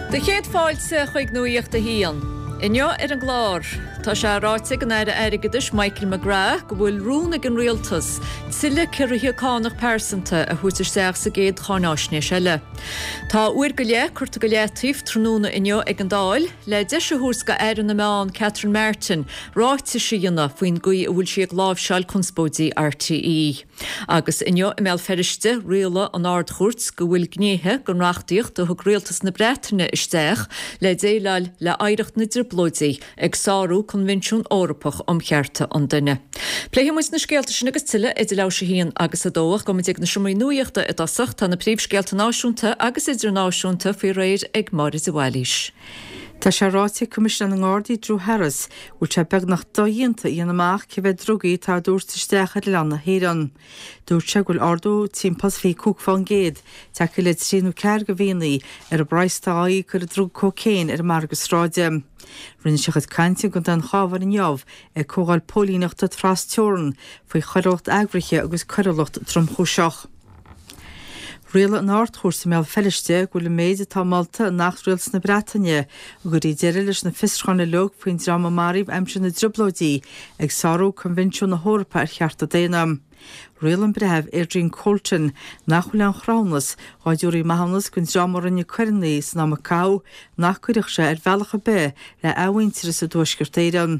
Do chéad fáilte chuig Nuacht a hAon. Inniu ar an gclár, tá sé ráite ag an Aire Airgeadais Michael McGrath go bhfuil rún ag an Rialtas tuilleadh ciorruithe cánach pearsanta a thabhairt isteach sa gcéad cháináisnéis eile. Tá uair go leith curtha go leataobh tráthnóna inniu ag an Dáil le deis a thabhairt do Aire na Meán Catherine Martin ráitis a dhéanamh faoin gcaoi a bhfuil sí ag láimhseáil conspóidí RTÉ. Agus inniu i mBéal Feirste, rialaigh an Ard-Chúirt go bhfuil gnéithe den reachtaíocht a thug rialtas na Breataine isteach le déileáil le hoidhreacht na dTrioblóidí ag sárú Coinbhinsiún Eorpach um Chearta an Duine. Pléifidh muid na scéalta sin agus tuilleadh idir leathuair tar éis a haon agus a dó ach gabhfaidh muid ag na seomraí nuaíochta i dtosach. Tá na príomhscéalta náisiúnta agus idirnáisiúnta faoi réir ag Máire de Bhailís. Tá sé ráite ag Coimisinéir na nGardaí Drew Harris go bhfuil sé beagnach dodhéanta a dhéanamh amach cé mhéad drugaí atá á dtabhairt isteach ar oileán na hÉireann. Dúirt sé go bhfuil ardú timpeall is 25% tagtha le trí nó ceathair de mhíonna ar an bpraghas atá á íoc ar an druga cócaon ar an margadh sráide. Rinne sé a chuid cainte i gContae an Chabháin inniu ag comhdháil póilíneachta tras teorann faoi choiriúlacht eagraithe agus coiriúlacht tromchúiseach. Rialaigh an Ard-Chúirt i mBéal Feirste go bhfuil an méid atá molta in Acht Rialtas na Breataine a gcuirfidh deireadh leis na fiosrúcháin uilig faoin dream a maraíodh aimsir na dTrioblóidí ag sárú Coinbhinsiún na hEorpa ar Chearta Daonna. Rialaigh an Breitheamh Adrian Colton nach bhfuil aon chruthúnas dhá dtabharfaí maithiúnas don dream a rinne coireanna san am a caitheadh nach gcuirfeadh sé ar bhealach ar bith le athmhuintearas i dTuaisceart Éireann.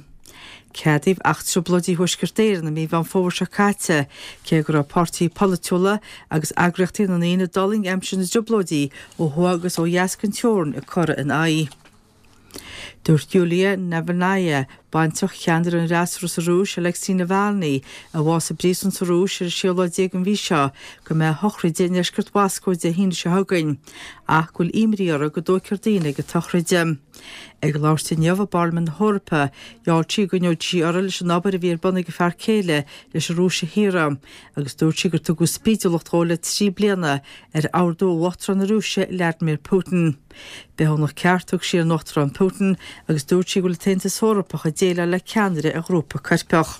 Ceadaíodh Acht Trioblóidí Thuaisceart Éireann i mí Mheán Fómhair seo caite, cé go raibh páirtithe polaitiúla agus eagraíochtaí na ndaoine a d'fhulaing aimsir na dTrioblóidí ó thuaidh agus ó dheas den teorainn ag cur ina aghaidh. Dúirt Yulia Navalnaya, baintreach cheannaire an fhreasúra sa Rúis, Alexei Navalny, a bhásaigh i bpríosún sa Rúis ar an séú lá déag den mhí seo, go mbeidh a shochraid i ndeisceart Mhoscó Dé hAoine seo chugainn, ach go bhfuil imní uirthi go dtóigfear daoine ag an tsochraid. Ag labhairt di inniu i bParlaimint na hEorpa, gheall sí go gcoinneoidh sí uirthi leis an obair a bhí ar bun ag a fear céile leis an Rúis a shaoradh, agus dúirt sí gur tugadh spídiúlacht dhó le 3 bliana ar ordú ó Uachtarán na Rúise, Vladimir Putin. Bithiúnach ceart a thug sí ar an Uachtarán Putin agus dúirt sí go bhfuil an tAontas Eorpach ag déileáil le ceannaire ar ghrúpa coirpeach.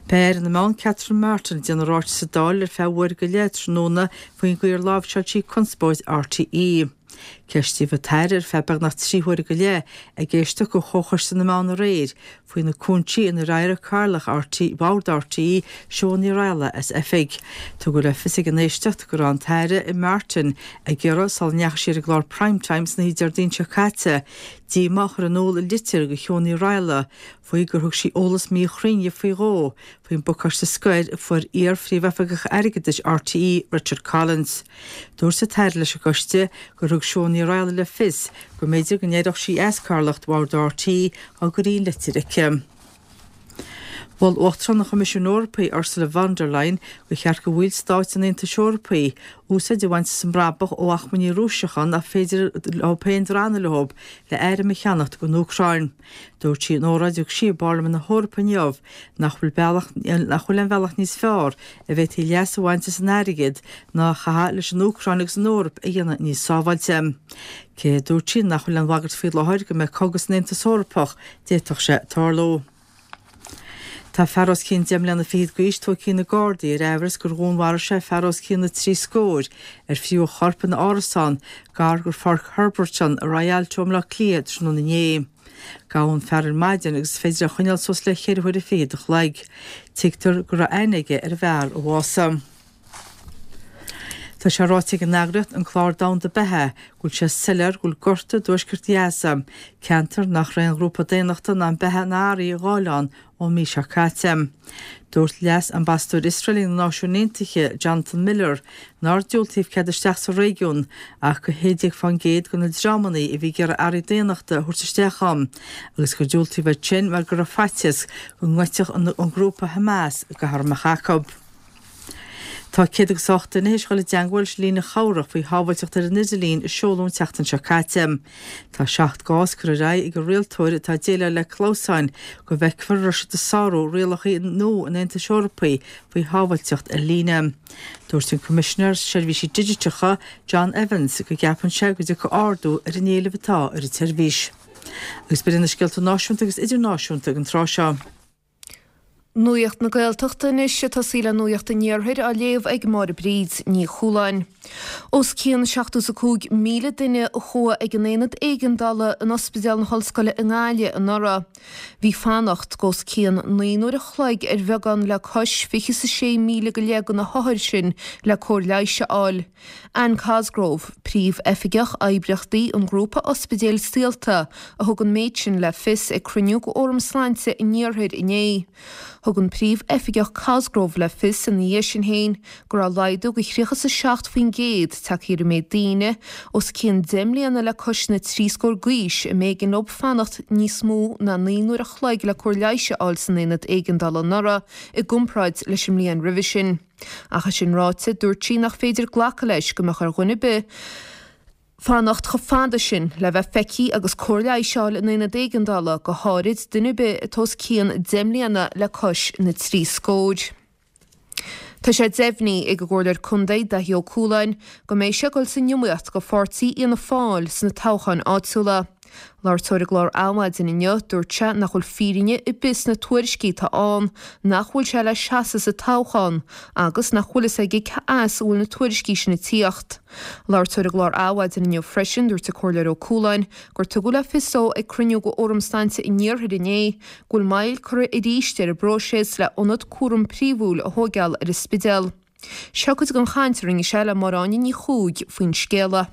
Beidh Aire na Meán Catherine Martin ag déanamh ráiteas sa Dáil ar feadh uair go leith tráthnóna faoin gcaoi ar láimhseáil sí conspóid RTÉ. Ceistíodh an tAire ar feadh beagnach 3 huaire go leith ag éisteacht do Chomhchoiste na Meán aréir faoi na cúinsí inar éirigh Cathaoirleach RTÉ, Bhord RTÉ, Siobhán Ní Raghallaigh as oifig. Tugadh le fios ag an éisteacht go raibh an tAire Martin ag iarraidh, sula ndeachaigh sí ar an gclár Prime Time san oíche Déardaoin seo caite, díomá a chur in iúl i litir do Shiobhán Ní Raghallaigh faoi gur thug sí eolas míchruinn faoi dhó faoin bpacáiste scoir a fuair iar-Phríomhoifigeach Airgeadais RTÉ, Richard Collins. Dúirt an tAire leis an gcoiste gur thug Siún Ní Raghallaigh le fios go mb'fhéidir go n-éireodh sí as cathaoirleacht Bhord RTÉ dá gcuirfí an litir aici. Mhol Uachtarán an Choimisiúin Eorpaigh, Ursula von der Leyen, gur cheart do bhallstáit an Aontais Eorpaigh úsáid a bhaint as an mbrabach ó achmainní Rúiseacha nach féidir leo féin drannadh leo le airm a cheannacht don Úcráin. Dúirt sí in óráid a thug sí i bParlaimint na hEorpa inniu nach bhfuil bealach nach bhfuil aon bhealach níos fearr a bhféadfaí leas a bhaint as an airgead ná a chaitheamh leis an Úcráin agus an Eoraip a dhéanamh níos sábháilte. Cé, a dúirt sí, nach bhfuil aon bhagairt faoi láthair go mbeidh cogadh san Aontas Eorpach, d'fhéadfadh sé tarlú. Tá fear os cionn deich mbliana fichead d'aois tógtha ag na Gardaí ar amhras gur dhúnmharaigh sé fear os cionn na dtrí scór ar fríothadh a chorp ina árasán gar do Pháirc Herberton i Rialto i mBleá Cliath tráthnóna inné. Gabhadh an fear ar maidin agus is féidir é a choinneáil suas le ceithre huaire fichead a chloig. Tuigtear go raibh aithne aige ar an bhfear a bhásaigh. Tá sé ráite ag an eagraíocht An Clár Domhanda Beatha go bhfuil sé soiléir go bhfuil gorta i dtuaisceart Ghaza, ceantar nach raibh aon ghrúpa daonnachta in ann beatha ná earraí a fháil ann ón mí seo caite. Dúirt Leas-Ambasadóir Iosrael ag na Náisiúin Aontaithe, Jonathan Miller, nár diúltaíodh cead isteach sa réigiún ach go 16% de na dreamanna a bhí ag iarraidh earraí daonnachta a thabhairt isteach ann agus gur diúltaíodh iad sin mar go raibh faitíos go ngoidfeadh an grúpa Hamas gach a raibh amach acu. Tá 108 duine théis dhul i dteangmháil leis an líne chabhrach faoi shábháilteacht ar an idirlíon a seoladh an tseachtain seo caite. Tá 7 gcás curtha ar aghaidh ag an rialtóir atá ag déileáil le clamhsáin go bhfeicfear an raibh siad ag sárú rialacha nua an Aontais Eorpaigh faoi shábháilteacht ar líne. Dúirt an Coimisinéir Seirbhísí Digiteacha, John Evans, go gceapann sé go dtiocfaidh ardú ar an éileamh atá ar an tseirbhís. Agus b'in iad na scéalta náisiúnta agus idirnáisiúnta ag an tráth seo. Nuacht na Gaeltachta anois, ag tosaí le Nuacht an Iarthair á léamh ag Máire Bríd Ní Chualáin. Os cionn 75,000 duine a chuaigh ag an aonad éigeandála in Ospidéal na hOllscoile i nGaillimh anuraidh. Bhí fanacht d'os cionn 9 n-uair a chloig ar bheagán le cois 26,000 go leith de na hothair sin le cóir leighis a fháil. Anne Cosgrove, Príomh-Oifigeach Oibríochtaí an Ghrúpa Ospidéil Saolta, a thug an méid sin le fios ag cruinniú de Fhóram Sláinte an Iarthair inné. Thug an Príomh-Oifigeach Cosgrove le fios ina dhiaidh sin féin go raibh laghdú de 37% tagtha ar an méid daoine os cionn 10 mbliana le cois na dtrí scór d'aois a mb'éigean leo fanacht níos mó ná 9 n-uair a chloig le cóir leighis a fháil san aonad éigeandála anuraidh i gcomparáid leis an mbliain roimhe sin. Ach é sin ráite, dúirt sí nach féidir glacadh leis go mbeadh ar dhuine ar bith fanacht chomh fada sin le bheith feicthe agus cóir leighis a fháil in aonad éigeandála, go háirid duine ar bith atá os cionn 10 mbliana le cois na dtrí scór. Tá sé deimhnithe ag an gComhairleoir Contae Daithí Ó Cualáin go mbeidh sé ag dul san iomaíocht do pháirtí Fhianna Fáil sna toghcháin áitiúla. Labhairt dó ar an gclár Adhmhaidin inniu, dúirt sé nach bhfuil fírinne ar bith sna tuairiscí atá ann nach bhfuil sé le seasamh sa toghchán agus nach bhfuil fhios aige cé as a bhfuil na tuairiscí sin ag tíocht. Labhairt dó ar an gclár Adhmhaidin inniu freisin, dúirt an Comhairleoir Ó Cualáin gur tugadh le fios dó ag cruinniú de Fhóram Sláinte an Iarthair inné go bhfuil moill curtha arís ar an bpróiseas le ionad cúram príomhúil a thóigeáil ar an Spidéal. Seo cuid den chaint a rinne sé le Máire Áine Ní Chuaig faoin scéala.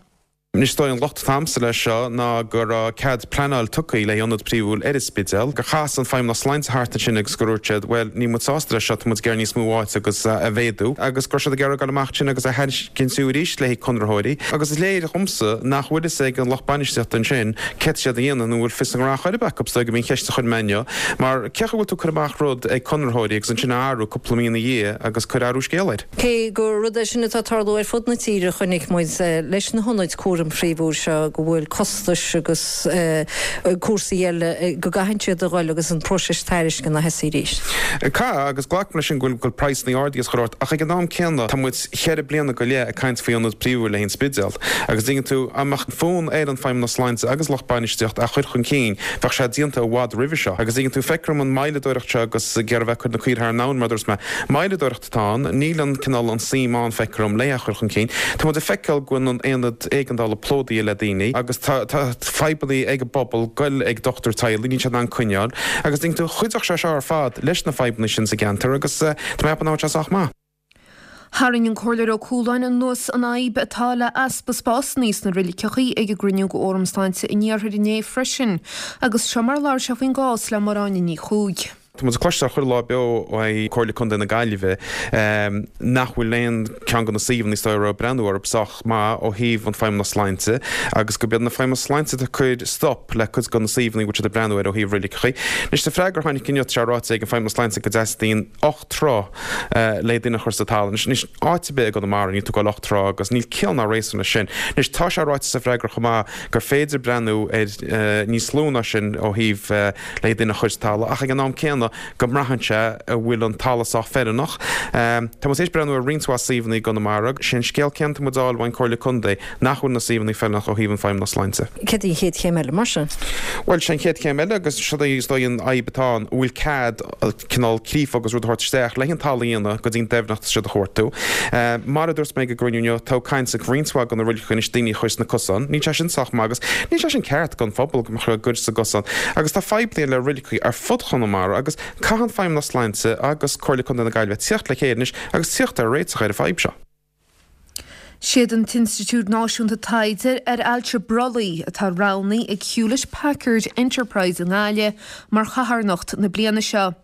Anois is dóigh an locht atá a'msa leis seo ná go raibh cead pleanáil tugtha le hionad príomhúil ar an Spidéal, gur chas an Feidhmeannas Sláinte thart ansin agus gur dhúirt siad bhuel níl muid sásta leis seo, tá muid ag iarraidh níos mó áite agus a mhéadú agus go raibh siad ag iarraidh dul amach ansin agus a thairiscint arís le haghaidh conraitheoirí agus is léir dhomsa nach bhfuil fhios ag an lucht bainistíochta ansin céard tá siad a dhéanamh nó an bhfuil fios a ngnó chor ar bith acu is dóigh gurb í an cheist a chuir mé inniu mar cén chaoi a bhfuil tú ag cur amach rud ag conraitheoirí agus ansin a athrú cúpla mí ina dhiaidh agus cur athrú scéal air. Cé gur rud é sin atá ag tarlú ar fud na tíre, chonaic muid leis na hionaid cúraim phríomhúil seo go bhfuil costais agus cúrsaí eile go gcaitheann siad a dhul agus an próiseas tairisceana a thosaí arís. Caithfidh, agus glacaim leis sin go bhfuil praghsanna ardaithe is chuile shórt, ach ag an am céanna tá muid cheithre bliana go leith ag caint faoi ionad príomhúil le haghaidh an Spidéal agus dtuigeann tú, dá mbeadh fonn ar an Feidhmeannas Sláinte agus lucht bainistíochta a chur chun cinn bheadh sé déanta i bhfad roimhe seo agus dtuigeann tú, feictear dom an moilleadóireacht seo agus ag iarraidh a bheith ag cur na caoire thar an abhainn mar a dúirt mé, moilleadóireacht. atá ann. Níl an cineál an suim ann, feictear dom, le é a chur chun cinn. Tá muid ag feiceáil go bhfuil an aonad éigeandála plódaithe le daoine agus tá fadhbanna ag an bpobal goil ag dochtúir teaghlaigh, níl siad in ann coinneáil. Agus dtuigeann tú, chuideodh sé seo ar fad leis na fadhbanna sin sa gceantar agus tá mé ag ceapadh nach bhfuil sé sách maith. Tharraing an Comhairleoir Ó Cualáin anuas an fhadhb atá le easpa spásanna sna roiliceachaí ag an gcruinniú de Fhóram Sláinte an Iarthair inné freisin agus seo mar a labhair sé faoin gcás le Máire Áine Ní Chuaig. Tá muid ag cloisteáil chuile lá beo ó Comhairle Contae na Gaillimhe nach bhfuil aon ceann de na suíomhanna is dóigh a raibh breathnú orthu sách maith ó thaobh an Feidhmeannas Sláinte agus gurb iad na Feidhmeannas Sláinte atá ag cur stop le cuid de na suíomhanna a bhfuil siad ag breathnú air ó thaobh roiliceachaí. Anois sa freagra a tháinig inniu tá sé ráite ag an Feidhmeannas Sláinte go dteastaíonn 8 troigh le duine a chur sa talamh. Anois áit ar bith i gConamara níl tú ag dul 8 troigh agus níl ciall ná réasún leis sin. Anois tá sé ráite sa bhfreagra chomh maith gur féidir breathnú ar níos lú ná sin ó thaobh le duine a chur sa talamh ach ag an am céanna go mbraitheann sé an bhfuil an talamh sách feiliúnach. Tá muid tar éis breathnú ar roinnt mhaith suíomhanna i gConamara. Sé an scéal céanna atá muid a fháil ón Comhairle Contae nach bhfuil na suíomhanna feiliúnach ó thaobh an Feidhmeannas Sláinte. Céard í an chéad chéim eile mar sin? Bhuel, sé an chéad chéim eile agus seo í is dóigh an fhadhb atá ann, an bhfuil cead cineál creafadh agus rud a thabhairt isteach le an talamh a dhéanamh go dtí an deimhneacht atá siad a chuartú. Mar a dúirt mé ag an gcruinniú inniu, tá caint ag roinnt mhaith de na roiligeacha anois daoine a chur sna cosáin. Níl sé sin sách maith agus níl sé sin ceart don phobal go mbeadh a gcuir sa gcosán. Agus tá fadhbanna le roiligeacha ar fud Chonamara agus caithfidh an Feidhmeannas Sláinte agus Comhairle Contae na Gaillimhe tíocht le chéile anois agus tíocht ar réiteach ar an fadhb seo. Siad an tInstitiúid Náisiúnta Taighde ar Ailse Brollaigh atá roghnaithe ag Hewlett Packard Enterprise i nGaillimh mar chatharnacht na bliana seo.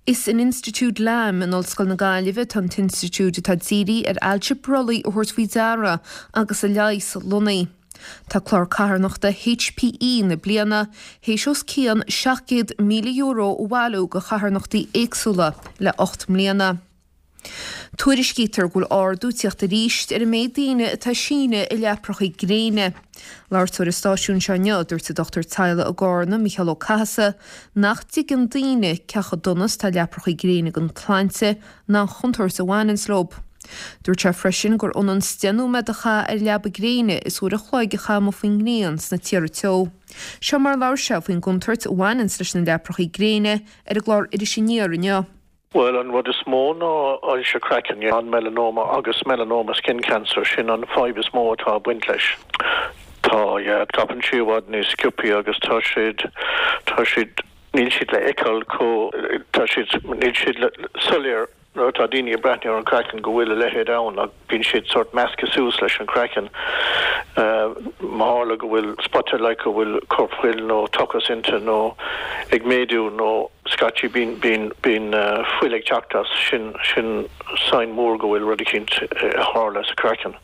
Is in Institiúid Lamb in Ollscoil na Gaillimhe atá an t-institiúid atá dírithe ar ailse brollaigh a thabhairt faoi deara agus a leigheas lonnaithe. Tá clár carthanachta HPE na bliana théis os cionn €700,000 a bhailiú do charthanachtaí éagsúla le 8 mbliana. Tuairiscítear go bhfuil ardú ag tíocht arís ar an méid daoine atá ag síneadh i leaprachaí gréine. Labhairt dó ar an stáisiún seo inniu, dúirt an dochtúir teaghlaigh i gCarna, Mícheál Ó Cathasaigh, nach dtuigeann daoine cé chomh dona is atá leaprachaí gréine don tsláinte ná an chontúirt a bhaineanns leo. Dúirt sé freisin gur ionann 's 10 nóiméad a chaitheamh ar leaba gréine is uair a chloig a chaitheamh amuigh faoin ngrian sna tíortha teo. Seo mar a labhair sé faoin gcontúirt a bhaineanns leis na leaprachaí gréine ar an gclár Iris Aniar inniu. Bhuel, an rud is mó ná ailse craicinn, an melanoma agus melanoma skin cancer, sin an fadhb is mó atá ag baint leis. Tá, yeah, scaipeann sí i bhfad níos sciobthaí agus tá siad, tá siad, níl siad le feiceáil chomh, tá siad, níl siad soiléir nuair atá daoine ag breathnú ar an craiceann go bhfuil a leithéid ann ach bíonn siad sórt measctha suas leis an craiceann. Má tharla go bhfuil spota like go bhfuil corpfhuil nó tochas inti nó ag méadú nó scaití bíonn bíonn bíonn fuil ag teacht as, sin sin sign mór go bhfuil rud eicínt ag tarlú sa craiceann.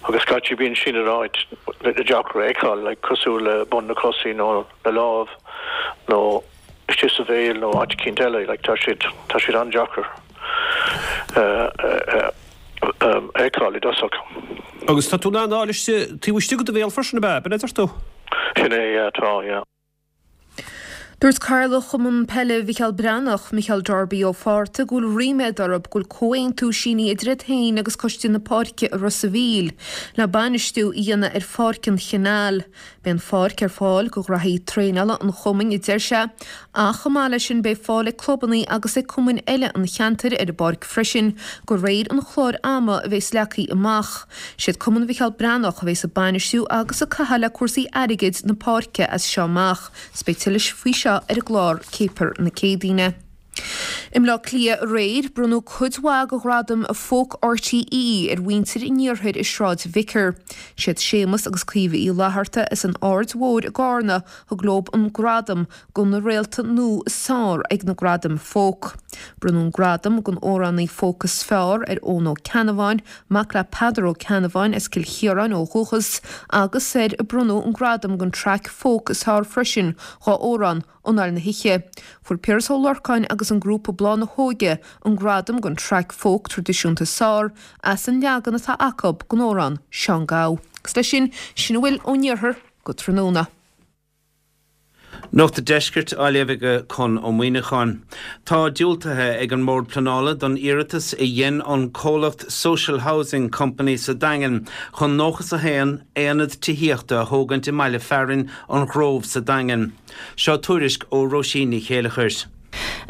Agus scaití bíonn sin in áit deacair a fheiceáil like cosúil le bun na cosaí nó na lámh nó istigh sa bhéal nó áit eicínt eile, like tá siad, tá siad an-deacair a fheiceáil i dtosach. Agus tá tú in ann a fháil istigh, taobh istigh de do bhéal freisin, ab ea? B'in a deir tú? Sin é, yeah, tá, yeah. Dúirt Cathaoirleach Chumann Peile Mhicheál Breathnach, Micheál Darby Ó Fátharta, go bhfuil ríméad orthu go bhfuil comhaontú sínithe idir iad féin agus Coiste na Páirce i Ros a' Mhíl le bainistiú a dhéanamh ar Pháirc an Chanáil. Beidh an pháirc ar fáil do ghraithí traenála an chumainn, a deir sé, ach chomh maith leis sin beidh fáil ag clubanna agus ag cumainn eile an cheantair ar an bpáirc freisin de réir an chláir ama a bheas leagtha amach. Siad Cumann Mhicheál Breathnach a bheas ag bainistiú agus ag caitheamh le cúrsaí airgid na páirce as seo amach. 'S beidh tuilleadh faoi seo ar an gclár Céipear na Céadaoine. I mBleá Cliath aréir, bronnadh cuid mhaith de ghradaim Folk RTÉ ar mhuintir an iarthair i Sráid Vicar. Siad Séamus agus Caoimhe Uí Fhlatharta as an Aird Mhóir i gCarna thug leo an gradam do na réalta nua is fearr ag na Gradaim Folk. Bronnadh an gradam don amhránaí folk is fearr ar Eoin Ó Ceannabháin, mac le Peadar Ó Ceannabháin as Cill Chiaráin ó dhúchas, agus ar bronnadh an gradam don traic folk is fearr freisin dá amhrán Anáil na hOíche. Fuair Piaras Ó Lorcáin agus an grúpa Bláth na hÓige an gradam don traic folk traidisiúnta is fearr as an leagan atá acu den amhrán Seán Gabha. Agus leis sin, sin a bhfuil ón iarthar go tráthnóna. Nuacht an Deiscirt á léamh ag Con Ó Muíneacháin. Tá diúltaithe ag an mBord Pleanála don iarratas a dhein an comhlacht Social Housing Company sa Daingean chun 91 aonad tithíochta a thógaint i mbaile fearainn an Ghrove sa Daingean. Seo tuairisc ó Róisín Ní Chéileachair.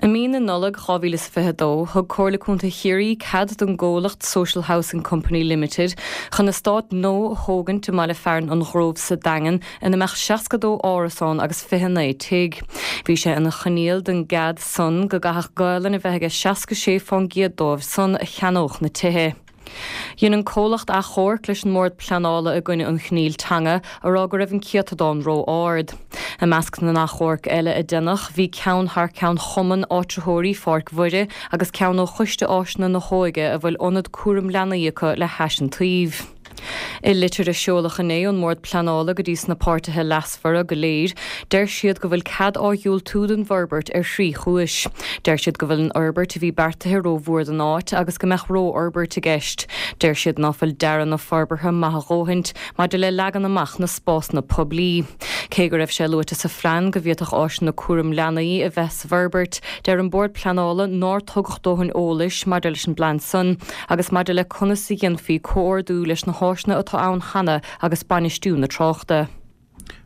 I mí na Nollag 2022, thug Comhairle Contae Chiarraí cead don gcomhlacht Social Housing Company Limited chun eastát nua a thógaint i mbaile fearainn an Ghrove sa Daingean ina mbeadh 62 árasán agus 29 tigh. Bhí sé ina choinníoll don gcead san go gcaithfeadh Gaolainn a bheith aige 66 fán gcéad dóibh san a cheannódh na tithe. Dhein an comhlacht achomharc leis an mBord Pleanála i gcoinne an choinníll teanga, a rá go raibh an céatadán ró-ard. I measc na n-achomharc eile a deineadh, bhí ceann thar ceann Chumann Áitritheoirí Pháirc Mhuire agus ceann ó Choiste Áiseanna na hÓige a bhfuil ionad cúram leanaí acu le hais an tsuímh. I litir a seoladh inné ón mBord Pleanála go dtí sna páirtithe leasmhara go léir, deir siad go bhfuil cead á dhiúltú don bhforbairt ar thrí chúis. Deir siad go bhfuil an fhorbairt a bhí beartaithe rómhór don áit agus go mbeadh rófhorbairt i gceist. Deir siad ná fuil dearadh na forbartha maith a dhóthaint maidir le leagan amach na spásanna poiblí. Cé go raibh sé luaite sa phlean go bhféadfadh áiseanna cúram leanaí a bheith sa bhforbairt, deir an Bord Pleanála nár tugadh dóthain eolais maidir leis an bplean san agus maidir le conas a dhéanfaí comhordú leis na háiseanna atá ann cheana agus bainistiú na tráchta.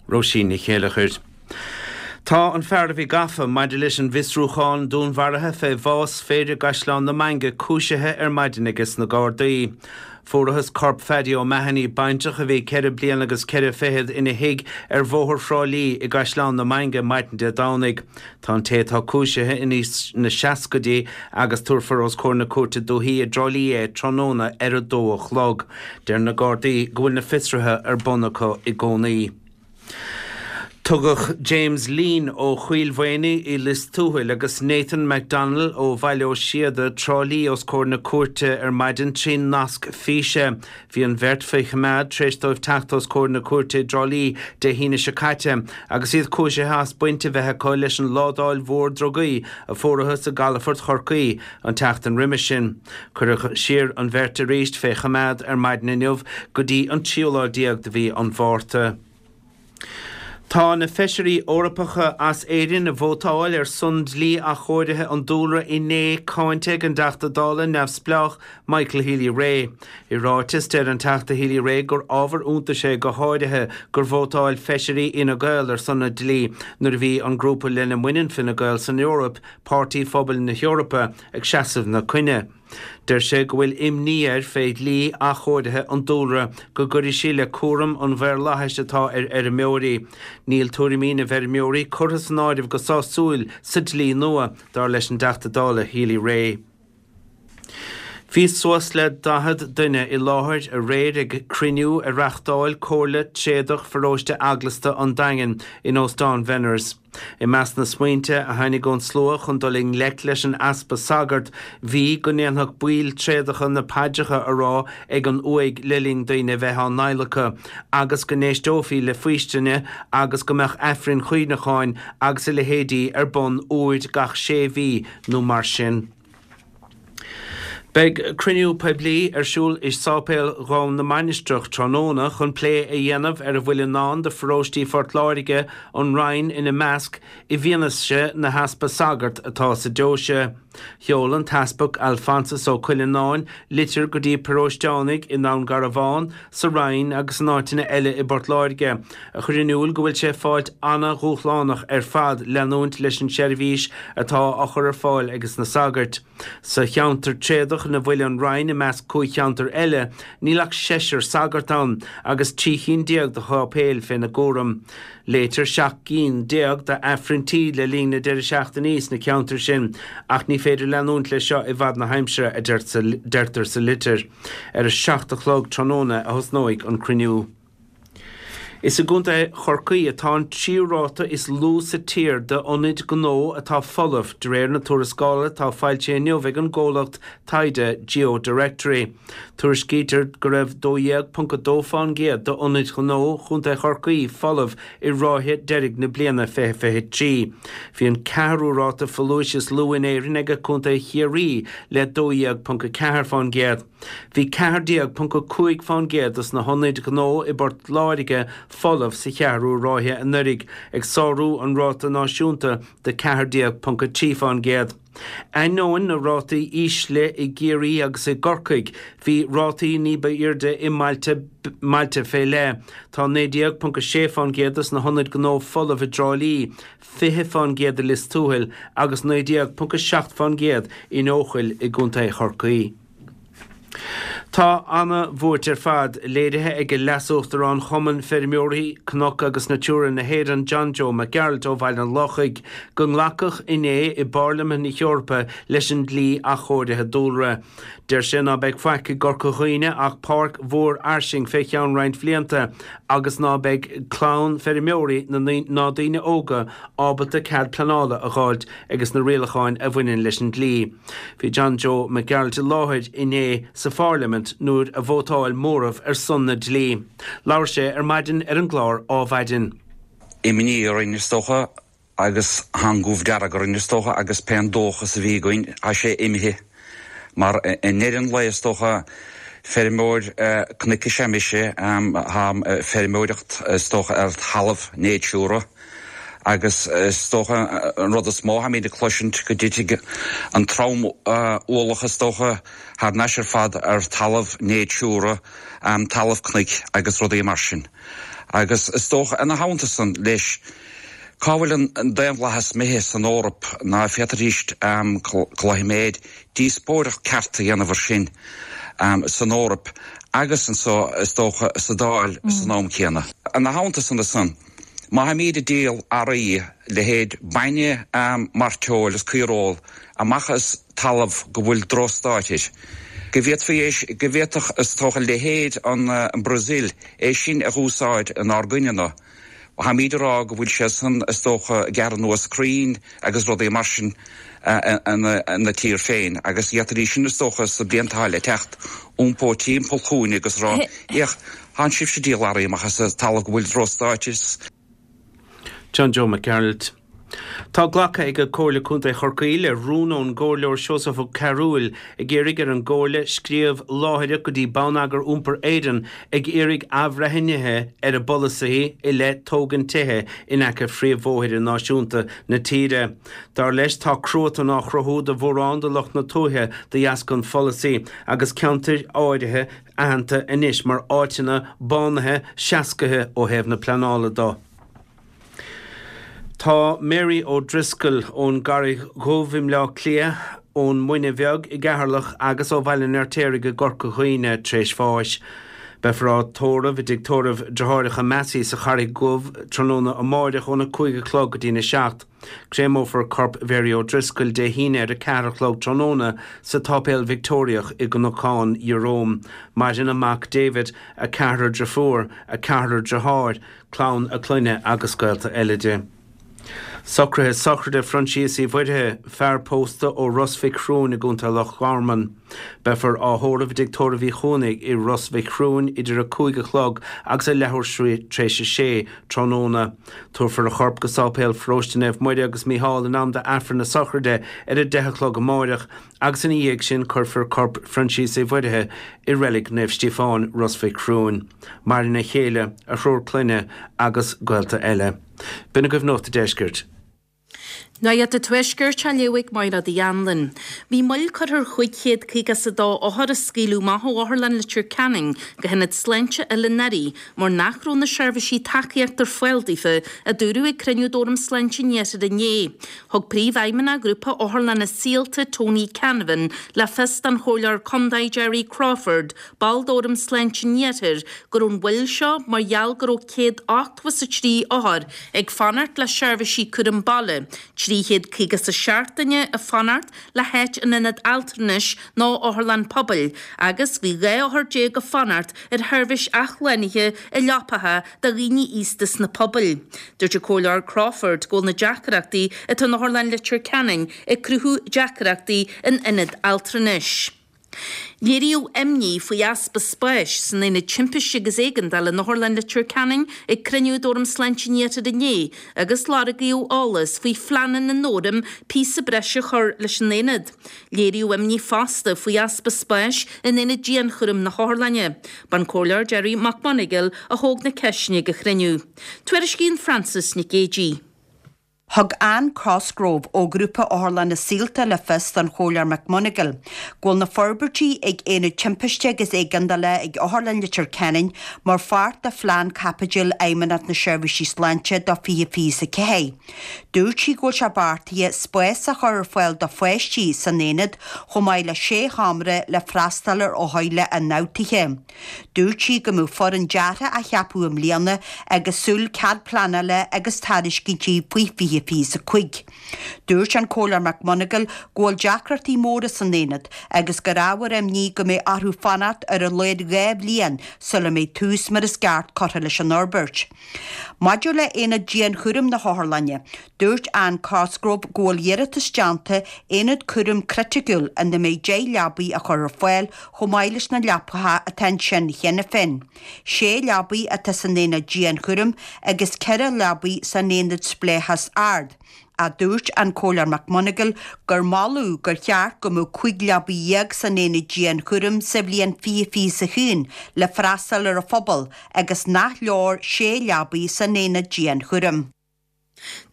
Róisín Ní Chéileachair. Tá an fear a bhí gafa maidir leis an bhfiosrúchán dúnmharaithe fé bhás fir i gCaisleán na Mainge cúisithe ar maidin aige sna Gardaí. Fuarathas corp Phaddy O'Mahony, baintreach a bhí 4 bliana agus 4 fichead, ina thigh ar Bhóthar Thrá Lí i gCaisleán na Mainge maidin Dé Domhnaigh. Tá an té atá cúisithe in aois na seascaidí agus tabharfar os comhair na Cúirte Dúichí i dTrá Lí é tráthnóna ar a dó a chlog. Deir na Gardaí go bhfuil na fiosruithe ar bun acu i gcónaí. Tugadh James Leen ó Choill Mhaonaigh i Lios Tuathail agus Nathan McDonnell ó Bhaile Ó Síoda, Trá Lí os comhair na cúirte ar maidin trí nasc físe. Bhí an bheirt faoi choimeád tar éis dóibh teacht os comhair na cúirte i dTrá Lí Dé hAoine seo caite agus iad cúisithe as baint a bheith acu leis an ládáil mhór drugaí a fuarathas i gcalafort Chorcaí an tseachtain roimis sin. Cuireadh siar an bheirt arís fé choimeád ar maidin inniu go dtí an tríú lá déag de mhí an Mhárta. Tá na Feisirí Eorpacha as Éirinn a vótáil ar son dlí athchóirithe an dúlra inné cáinte ag an dTeachta Dála neamhspleách Michael Healy-Rae. I ráiteas, deir an Teachta Healy-Rae gur ábhar iontais é go háirithe gur vótáil Feisirí Fhine Gael ar son an dlí nuair a bhí an grúpa lena mbaineann Fine Gael san Eoraip, Páirtí Phobail na hEorpa, ag seasamh 'na coinne. Deir sé go bhfuil imní air fé dhlí athchóirithe an dúlra go gcuirfidh sí le cúram an mhaorlathais atá ar fheirmeoirí. Níl tuairimí na bhfeirmeoirí curtha san áireamh go sásúil sa dlí nua, dar leis an dTeachta Dála Healy-Rae. Bhí suas le 40 duine i láthair aréir ag cruinniú a reachtáil Comhairle Tréadach Pharóiste Eaglasta an Daingin in Óstán Bhenners. I measc na smaointe a tháinig ón slua chun dul i ngleic leis an easpa sagart bhí go ndéanfadh baill tréadacha na paidreacha a rá ag an uaigh le linn daoine a bheith á n-adhlacadh agus go n-éisteofaí le faoistine agus go mbeadh aifrinn chuimhneacháin agus a leithéidí ar bun uair gach sé mhí nó mar sin. Beidh cruinniú poiblí ar siúl i Sáipéal Dhún na Mainistreach tráthnóna chun plé a dhéanamh ar a bhfuil i ndán do pharóistí Phort Láirge, an Rinn ina measc, i bhfianaise na heaspa sagart atá sa deoise. Sheol an tEaspag Alphonsus Ó Cuileanáin litir go dtí paróisteánaigh i nDún Garbhán, sa Rinn agus in áiteanna eile i bPort Láirge, a chuir in iúl go bhfuil sé ag fáilt ana-dhúshlánach ar fad leanúint leis an seirbhís atá á chur ar fáil ages na sagairt. Sa cheantar tréadach ina bhfuil an Rinn i measc 5 cheantar eile, níl ach seisear sagart ann agus 13 chinn de sháipéil féna gcúram. Léitear 17 gcinn d'Aifrinntí le linn na deireadh seachtainí sna ceantair sin ach ní féidir leanúint leis seo i bhfad na haimsire, a deirtear sa litir. Ar a 7 a chlog tráthnóna a thosnóidh an cruinniú. Is i gContae Chorcaí atá an tríú ráta is lú sa tír d'ionaid gnó atá folamh, de réir na tuarascála atá foilsithe inniu ag an gcomhlacht taighde GeoDirectory. Tuairiscítear go raibh 12.2% d'ionaid ghnó Chontae Chorcaí folamh i ráithe deiridh na bliana 2023. Bhí an ceathrú ráta folúis is lú in Éirinn ag Contae Chiarraí le 12.4%. Bhí 14.5% dos na hionaid ghnó i bPort Láirge folamh sa cheathrú ráithe anuraidh, ag sárú an ráta náisiúnta de 14.3%. Ainneoin na rátaí ísle i gCiarraí agus i gCorcaigh, bhí rátaí ní ba airde i mbailte mbailte fé leith. Tá 19.6% dos na hionaid gnó folamh i dTrá Lí, 20% i Lios Tuathail agus 19.7% in Eochaill i gContae Chorcaí. Tá ana-bhuairt ar fad léirithe ag Leas-Uachtarán Chumann Feirmeoirí Cnoc agus Natura na hÉireann John Joe Mac Gearailt ó Bhaile an Lochaigh go nglacadh inné i bPairlimint na hEorpa leis an dlí athchóirithe dúlra. Deir sé ná beidh faic i gCorca Dhuibhne ach páirc mhór fhairsing fé cheann roinnt bhlianta agus ná beidh clann feirmeoirí ná daoine óga ábalta cead pleanála a dh'fháilt ages na rialacháin a bhaineann leis an dlí. Bhí John Joe Mac Gearailt i láthair inné sa Phairlimint nuair a vótáil móramh ar son na dlí. Labhair sé ar maidin ar an gclár Ádhmhaidin. Imní orainn is dócha agus tá an gomh dearg orainn is dócha agus pé an dóchas a bhí againn tá sé imithe mar i ndeireadh an lae is dócha feirmeoir cnoic is ea mise, táim ag feirmeoireacht is dócha ar thalamh Natura. Agus is dócha an rud is mó atáimid ag cloisint go dtitfidh an trom-ualach is dócha thar n-ais ar fad ar talamh Natura, talamh cnoic agus rudaí mar sin. Agus is dócha ina theannta san leis, cá bhfuil an daonlathas imithe san Eoraip ná féadfaidís cloisim díospóireacht ceart a dhéanamh ar sin san Eoraip agus anso is dócha sa Dáil san am céanna. Ina theannta san ansan. Má tháimíd ag díol earraí, leithéid bainne, mairteoil is caoireoil, amach as talamh go bhfuil drochstáit air, go bhféadfaí é, go bhféadfadh, is dócha, leithéid an Brazil é sin a dh'úsáid inár gcoinne-na. Tháimíd ag rá go bhfuil sé san, is dócha, ag gearradh anuas crainn agus rudaí mar sin ina tír féin agus d'fhéadfaidís sin, is dócha, sna blianta atá le teacht, iompó timpeall chugainn agus rá, Fhéach, Tánn sibhse ag díol earraí amach as talamh go bhfuil drochstáit is. John Joe Mac Gearailt. Tá glactha ag Comhairle Contae Chorcaí le rún ón gComhairleoir Seosamh Ó Cearúil ag iarraidh ar an gComhairle scríobh láithreach go dtí Bonneagar Iompair Éireann ag iarraidh athbhreithnithe ar a bpolasaithe i leith tógaint tithe in aice phríomhbhóithre náisiúnta na tíre. Dar leis tá cruatan á chruthú do mhórán de lucht na tuaithe de dheasca an pholasaí agus ceantair áirithe aitheanta anois mar áiteanna bánaithe seascaithe ó thaobh na pleanála do. Tá Mary O'Driscoll ón gCarraig Dhubh i mBleá Cliath, ón Muine Bheag i gCeatharlach agus ó Bhaile an Fheirtéaraigh i gCorca Dhuibhne tar éis bháis. Beifear á tórramh i dtigh tórraimh Deartháireacha Massey sa Charraig Dhubh tráthnóna amáireach óna 5 a chlog go dtína 7. Créamófar corp Mhary O'Driscoll Dé hAoine ar a 4 a chlog tráthnóna sa tSáipéal Victeoiriach i gCnocán Jerome. Maireann a mac David, a ceathrar driofúr, a ceathrar driotháir, clann a clainne agus gaolta eile di. Socruithe sochraide Phroinsias Uí Mhuirthigh, fear pósta ó Ros Mhic Thriúin i gContae Loch Garman. Beifear á thórramh i dTigh Tórraimh Uí Chuanaigh i Ros Mhic Thriúin idir a 5 a chlog agus a leathuair tar éis a sé tráthnóna. Tabharfar a chorp go Sáipéal Pharóiste Naomh Muire agus Mícheál in am d'Aifreann na sochraide ar a 10 a chlog amáireach agus ina dhiaidh sin cuirfear corp Phroinsias Uí Mhuirthigh i Reilig Naomh Stíofáin, Ros Mhic Thriúin. Maireann a chéile, a thriúr clainne agus gaolta eile. B'in agaibh Nuacht an Deiscirt. Nuacht an Tuaiscirt á léamh ag Máire Uí Anluain. Bhí moill curtha ar 552 othar a scaoileadh amach ó Otharlann Leitir Ceanainn go hIonad Sláinte Oileán Fhearaí mar nach raibh na seirbhísí tacaíochta ar fáil daofa, a dúradh ag cruinniú d'Fhóram Sláinte an Iarthair inné. Thug Príomhfheidhmeannach Ghrúpa Otharlanna Saolta, Tony Canavan, le fios don Chomhairleoir Contae Gerry Crawford, ball d'Fhóram Sláinte an Iarthair, go raibh an mhoill seo mar gheall go raibh 183 othar ag fanacht le seirbhísí cúram baile, 357 duine ag fanacht le háit in ionad altranais nó otharlann pobail agus bhí 12 othar ag fanacht ar sheirbhís athshlánaithe i leapacha do dhaoine aosta sna pobail. Dúirt an Comhairleoir Crawford go bhfuil na deacrachtaí atá in Otharlann Leitir Ceanainn ag cruthú deacrachtaí in ionad altranais. Léiríodh imní faoi easpa spáis san Aonad Timpiste agus Éigeandála in Otharlann Leitir Ceanainn ag cruinniú d'Fhóram Sláinte an Iarthair inné agus lorgaíodh eolas faoi phleananna an Fhóraim píosa breise a chur leis an aonad. Léiríodh imní fosta faoi easpa spáis in Aonad Dianchúraim na hOtharlainne. B'an Comhairleoir Gerry Mac Monagail a thóg na ceisteanna ag an chruinniú. Tuairiscíonn Frances Nic Géadaigh. Thug Anne Cosgrove ó Ghrúpa Otharlanna Saolta le fios don Chomhairleoir McMonagail go bhfuil na forbairtí ag Aonad Timpiste agus Éigeandála ag Otharlann Leitir Ceanainn mar pháirt de phlean caipitil Fheidhmeannacht na Seirbhísí Sláinte do 2024. Dúirt sí go bhfuil sé beartaithe spás a chur ar fáil do pháistí san aonad chomh maith le sé sheomra le freastal ar othair le ionfhabhtuithe. Dúirt sí go mbeadh foireann deartha á cheapadh i mbliana agus súil cead pleanála agus tairiscintí faoi 2025. Dúirt an Comhairleoir McMonagail go bhfuil deacrachtaí móra san aonad agus gur ábhar imní go mbeidh orthu fanacht ar a laghad 2 bhliain sula mbeidh tús mar is ceart curtha leis an fhorbairt. Maidir le haonad dianchúraim na hOtharlainne, dúirt Anne Cosgrove go bhfuil iarratas déanta aonad cúraim criticiúil ina mbeidh 10 leabaidh a chur ar fáil chomh maith leis na leapacha atá ansin cheana féin. Sé leabaidh atá san aonad dianchúraim agus 4 leabaidh san aonad spleáchas ard. Ach dúirt an Comhairleoir McMonagail gur moladh gur cheart go mbeadh 15 leabaidh san aonad dianchúraim sa bhliain 2021 le freastal ar an phobal agus nach leor 6 leabaidh san aonad dianchúraim.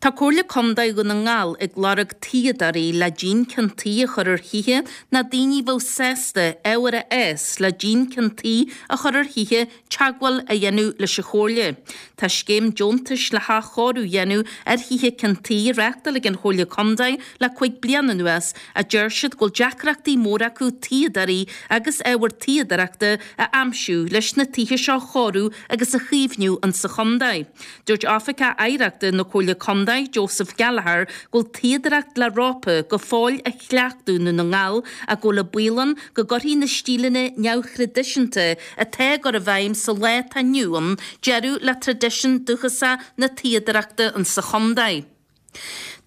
Tá Comhairle Contae Dhún na nGall ag lorg tuíodóirí le díon ceann tuí a chur ar thithe nó daoine a bheadh sásta ábhar a fhás le díon ceann tuí a chur ar thithe teagmháil a dhéanamh leis an Chomhairle. Tá scéim deontais le hathchóiriú a dhéanamh ar thithe ceann tuí á reáchtáil ag an Chomhairle Contae le 5 bliana anuas ach deir siad go bhfuil deacrachtaí móra acu tuíodóirí agus ábhar tuíodóireachta a aimsiú leis na tithe seo a chóiriú agus a chaomhnú insa chontae. Dúirt Oifigeach Oidhreachta na Comhairle Contae, Joseph Gallagher, go bhfuil tuíodóireacht le rópa go fóill á chleachtadh i nDún na nGall ach go bhfuil an baol ann go gcuirfidh na stíleanna neamhthraidisiúnta atá á gcur i bhfeidhm sa lá atá inniu ann deireadh le traidisiún dúchasach na tuíodóireachta insa chontae.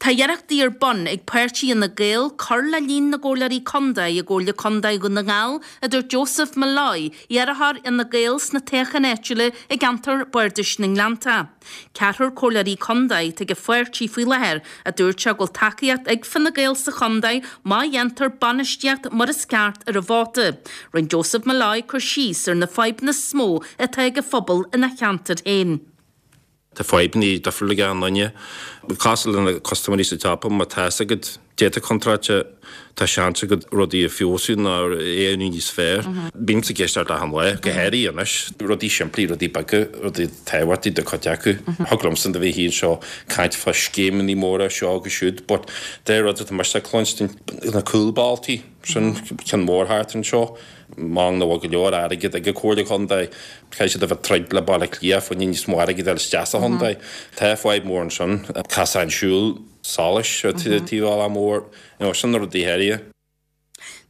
Tá iarrachtaí ar bun ag páirtí Fhine Gael cur le líon na gcomhairleoirí contae i gComhairle Contae Dhún na nGall, a dúirt Joseph Molloy, iarrthóir Fhine Gael sna toghcháin áitiúla i gceantar Bardais na nGleannta. Ceathrar comhairleoirí contae atá ag an pháirtí faoi láthair, a dúirt sé go bhfuil tacaíocht ag Fine Gael sa chontae má dhéantar bainistíocht mar is ceart ar an vóta. Rinne Joseph Molloy cur síos ar na fadhbanna is mó atá ag an phobal ina cheantar féin. Tá fadhbanna difriúla ag achan duine. Cosúil le na custaiméirí sa tsiopa, má tá fhios agat dáta contráilte, tá seans agat rudaí a feabhsú nó a dhéanamh níos fearr. Bímse ag éisteacht achan lá, go háirithe anois. Rudaí simplí, rudaí beaga, rudaí tábhachtaí do chuid acu. Thig liomsa do bheith anseo ag caint fá scéimeanna móra seo agus siúd, but de rud atá mise ag cluinstin, na cúlbhealtaí, sin ceann mór thart anseo. M'anam nach bhfuil go leor airgead ag an Comhairle Contae. Caithfidh siad a bheith ag troid le Baile Átha Cliath fá choinne níos mó airgid a fháil isteach sa chontae. Tá fadhb mór ansin. Casán siúil solais ar taobh bealach mór. You know, sin na rudaí áirithe.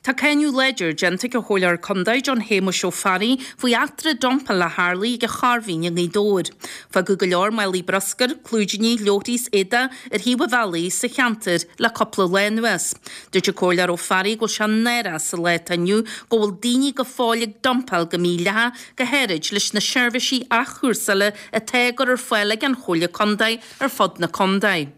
Tá cáineadh láidir déanta ag an Chomhairleoir Contae John Shéamuis Ó Fearraigh faoi eachtra dumpála a tharlaigh ag an Chairbhín i nGaoth Dobhair. Fágadh go leor málaí bruscair, clúidíní, leabharthaí is éadaigh ar thaobh an bhealaigh sa cheantar le cúpla lá anuas. Dúirt an Comhairleoir Ó Fearraigh go bhfuil sé náireach sa lá atá inniu go bhfuil daoine go fóill ag dumpáil go mídhleathach, go háirid leis na seirbhísí athchúrsála atá á gcur ar fáil ag an Chomhairle Contae ar fud na contae.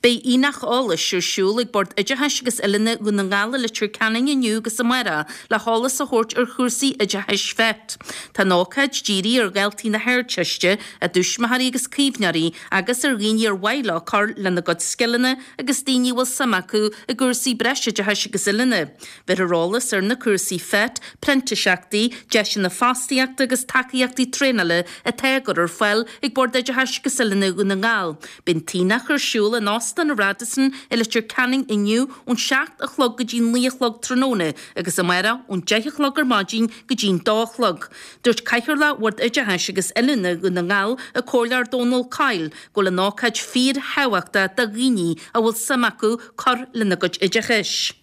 Beidh aonach eolais ar siúl ag Bord Oideachais agus Oiliúna Dhún na nGall i Leitir Ceanainn inniu agus amárach le heolas a thabhairt ar chúrsaí oideachais FET. Tá an ócáid dírithe ar dhaltaí na hArdteiste, a dtuismitheoirí agus caomhnóirí agus ar dhaoine ar mhaith leo cur lena gcuid scileanna agus daoine a bhfuil suim acu i gcúrsaí breisoideachais agus oiliúna. Bheirfear eolas ar na cúrsaí FET, printíseachtaí, deiseanna fostaíochta agus tacaíochtaí traenála atá á gcur ar fáil ag Bord Oideachais agus Oiliúna Dhún na nGall. Beidh an t-aonach ar siúl in Óstán an Radisson i Leitir Ceanainn inniu ón 7 a chlog go dtí 9 a chlog tráthnóna agus amárach ón 10 a chlog ar maidin go dtí an 2 a chlog. Dúirt Cathaoirleach Bhord Oideachais agus Oiliúna Dhún na nGall, an Comhairleoir Dónal Coyle, go bhfuil an ócáid fíorthábhachtach do dhaoine a bhfuil suim acu cur lena gcuid oideachais.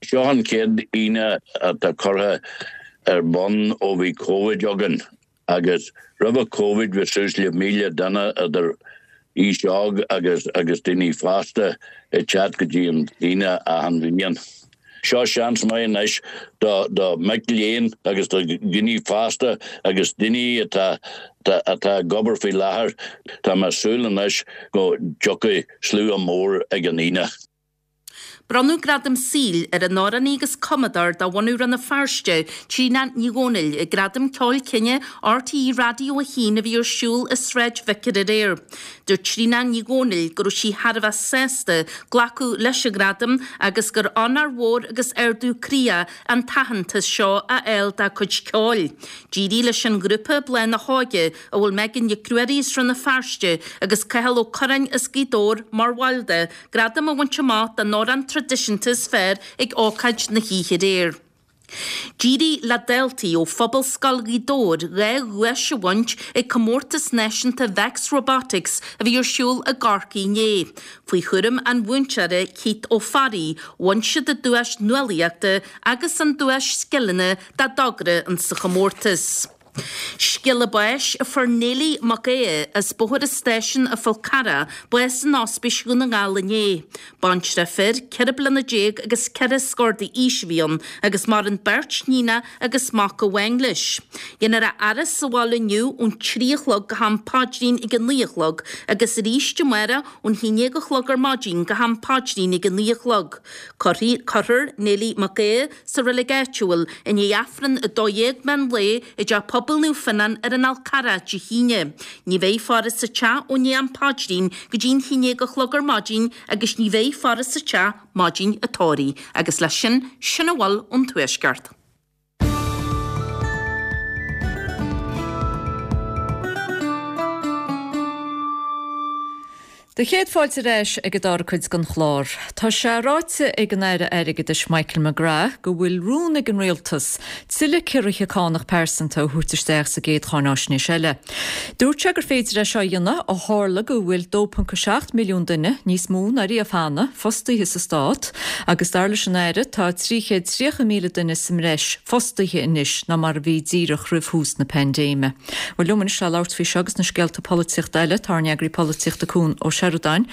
Seo an chéad Aoine atá curtha ar bun ó bhí Covid againn agus roimhe Covid bhí suas le 1,000 duine idir aois óg agus agus daoine fásta ag teacht go dtí an Aoine achan bhliain. Seo seans maith anois do do mic léinn agus do dhaoine fásta agus daoine atá atá ag obair faoi láthair. Tá mé ag súil anois go dtiocfaidh slua mór ag an Aoine. Bronnadh Gradam Saoil ar an amhránaí agus cumadóir de bhunadh Rann na Feirste, Tríona Ní Dhomhnaill, ag Gradaim Ceoil Cine RTÉ Raidió 1 a bhí ar siúl i Sráid Vicar aréir. Dúirt Tríona Ní Dhomhnaill go raibh sí thar a bheith sásta glacadh leis an ghradam agus gur onóir mhór agus ardú croí é an t-aitheantas seo a fháil dá cuid ceoil. D'éirigh leis an ghrúpa Bláth na hÓige, a bhfuil Megan Nic Ruairí as Rann na Feirste agus Cathal Ó Curráin as Gaoth Dobhair mar bhaill de, gradam a bhaint amach don amhrán traidisiúnta is fearr ag ócáid na hoíche aréir. D'éirigh le daltaí ó Phobalscoil Ghaoth Dobhair 2 dhuais a bhaint ag Comórtas Náisiúnta Vex Robotics a bhí ar siúl i gCorcaigh inné. Faoi chúram an mhúinteora Keith Ó Fearraigh, bhain siad an duais nuálaíochta agus an duais scileanna dá dtogra insa chomórtas. Scéala báis a fuair Neilí Mac Aodha as Bóthar an Stáisiúin an Fhál Carrach bás in Ospís Dhún na nGall inné. Baintreach fir, 14 bliana agus ceithre scór d'aois a bhí ann agus maireann beirt níonach agus mac amháin leis. Dhéanfar a fhaire sa bhaile inniu ón 3 a chlog go ham paidrín ag a 9 a chlog agus arís amárach ón 11 a chlog ar maidin go ham paidrín ag a 9 a chlog. Cuirfear Neilí Mac Aodha sa reilig áitiúil i ndiaidh Aifreann 12 meán lae i dTeach Pobail Naomh Fionnán ar an Fhál Carrach Dé hAoine. Ní bheidh faire sa teach ó ndiaidh am paidrín go dtí an 11 a chlog ar maidin agus ní bheidh faire sa teach maidin an tórraimh. Agus leis sin, sin a bhfuil ón Tuaisceart. Do chéad fáilte ar ais ag an dara cuid den chlár. Tá sé ráite ag an Aire Airgeadais Michael McGrath go bhfuil rún ag an Rialtas tuilleadh ciorruithe cánach pearsanta a thabhairt isteach sa gcéad cháináisnéis eile. Dúirt sé gur féidir é seo a dhéanamh ó tharla go bhfuil 2.7 milliún duine, níos mó ná riamh cheana, fostaithe sa Stát agus dar leis an Aire tá 330,000 duine sa mbreis fostaithe anois ná mar a bhí díreach roimh thús na paindéime. Bhuel liom anois le labhairt faoi seo agus na scéalta polaitíochta eile, tá ár n-eagraí polaitíochta Cuan Ó. Sheireadáin.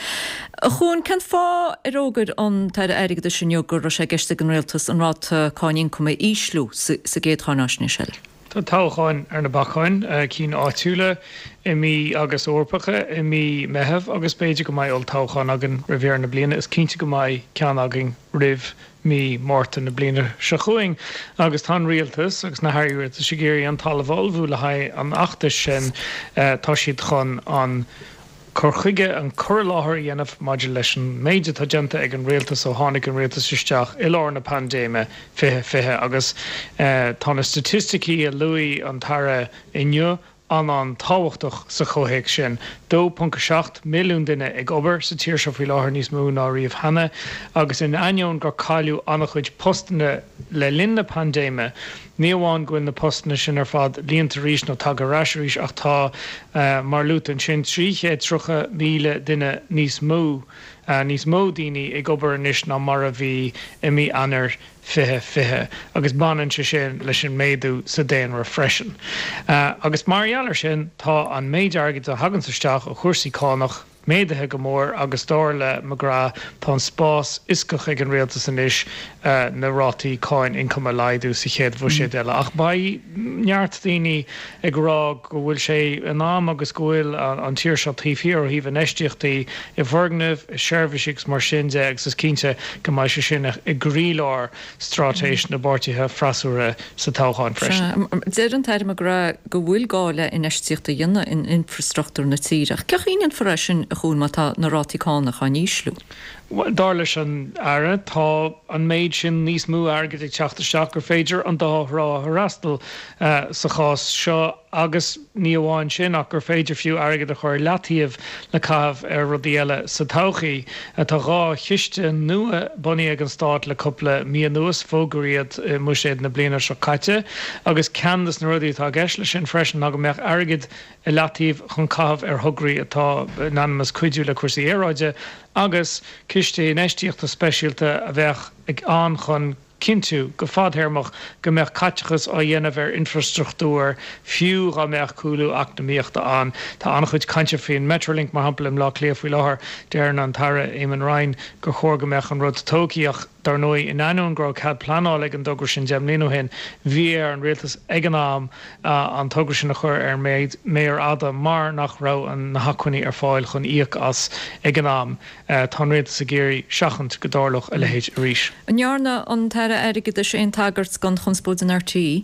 A Chuain, cén fáth ar fhógair an tAire Airgeadais inniu go raibh sé i gceist ag an Rialtas an ráta cáin ioncaim a ísliú sa gcéad cháináisnéis eile? Tá toghcháin ar na bacáin, cinn áitiúla i mí agus Eorpacha i mí Meitheamh agus b'fhéidir go mbeidh olltoghchán againn roimh dheireadh na bliana. Is cinnte go mbeidh ceann againn roimh mí Márta na bliana seo chugainn agus tá an Rialtas agus na hairí rialtais ag iarraidh an talamh a ullmhú le haghaidh an fheachtais sin. Tá siad chun an cur chuige, an cur i láthair a dhéanamh maidir leis an méid atá déanta ag an Rialtas ó tháinig an Rialtas isteach i lár na paindéime 2020 agus tá na staitisticí a luaigh an tAire inniu an-an-tábhachtach sa chomhthéacs sin. 2.7 milliún duine ag obair sa tír seo faoi láthair, níos mó ná riamh cheana, agus in ainneoin gur cailleadh an-chuid postanna le linn na paindéime, ní amháin go bhfuil na postanna sin ar fad líonta arís nó tagtha ar ais arís ach tá, mar luaite ansin, 330,000 duine níos mó, níos mó daoine ag obair anois ná mar a bhí i mí Eanáir 2020 agus baineann sé sin leis an méadú sa daonra freisin. Agus mar gheall air sin, tá an méid airgid a thaganns isteach ó chúrsaí cánach méadaithe go mór agus dar le McGrath tá an spás fhioscach ag an rialtas anois na rátaí cáin ioncaim a laghdú sa chéad bhuiséad eile. Ach beidh neart daoine ag rá go bhfuil sé in am agus go bhfuil an tír seo taobh thiar ó thaobh infheistíochtaí i bhfoirgnimh, i seirbhísí agus mar sin de agus is cinnte go mbeidh sé sin i gcroílár straitéis na bpáirtithe freasúra sa toghchán freisin. Deir an tAire McGrath go bhfuil gá le infheistíocht a dhéanamh in infreastruchtúr na tíre ach cén chaoi a ndéanfar é sin a Chuain má tá na rátaí cánach á n-ísliú? Bhuel, dar leis an Aire, tá an méid sin níos mó airgid ag teacht isteach gur féidir an dá thrá a fhreastal sa chás seo agus ní amháin sin ach gur féidir fiú airgead a chur i leataobh le caitheamh ar rudaí eile sa todhchaí. Tá 2 chiste nua bunaithe ag an Stát le cúpla mí anuas, fógraíodh iad i mBuiséad na bliana seo caite agus ceann de na rudaí atá i gceist leis sin freisin ná go mbeadh airgead i leataobh chun caitheamh ar thograí atá in ainm is cuidiú le cúrsaí aeráide agus ciste infheistíochta speisialta a bheadh ann chun cinntiú go fadthéarmach go mbeadh caiteachas á dhéanamh ar infreastruchtúr fiú dhá mbeadh cúlú eacnamaíochta ann. Tá an-chuid cainte faoin Metrolink, mar shampla, i mBleá Cliath faoi láthair. Deireann an tAire Eamon Ryan gur chóir go mbeadh an rud tógtha ach, Dar ndóigh, in ainneoin go raibh cead pleanála ag an dtogra sin 10 mbliana ó shin, bhí ar an rialtas ag an am an togra sin a chur ar an méar fhada mar nach raibh na hacmhainní ar fáil chun íoc as ag an am. Tá an rialtas ag iarraidh seachaint go dtarlódh a leithéid arís. An ndearna an tAire Airgeadais aon tagairt don chonspóid in RTÉ?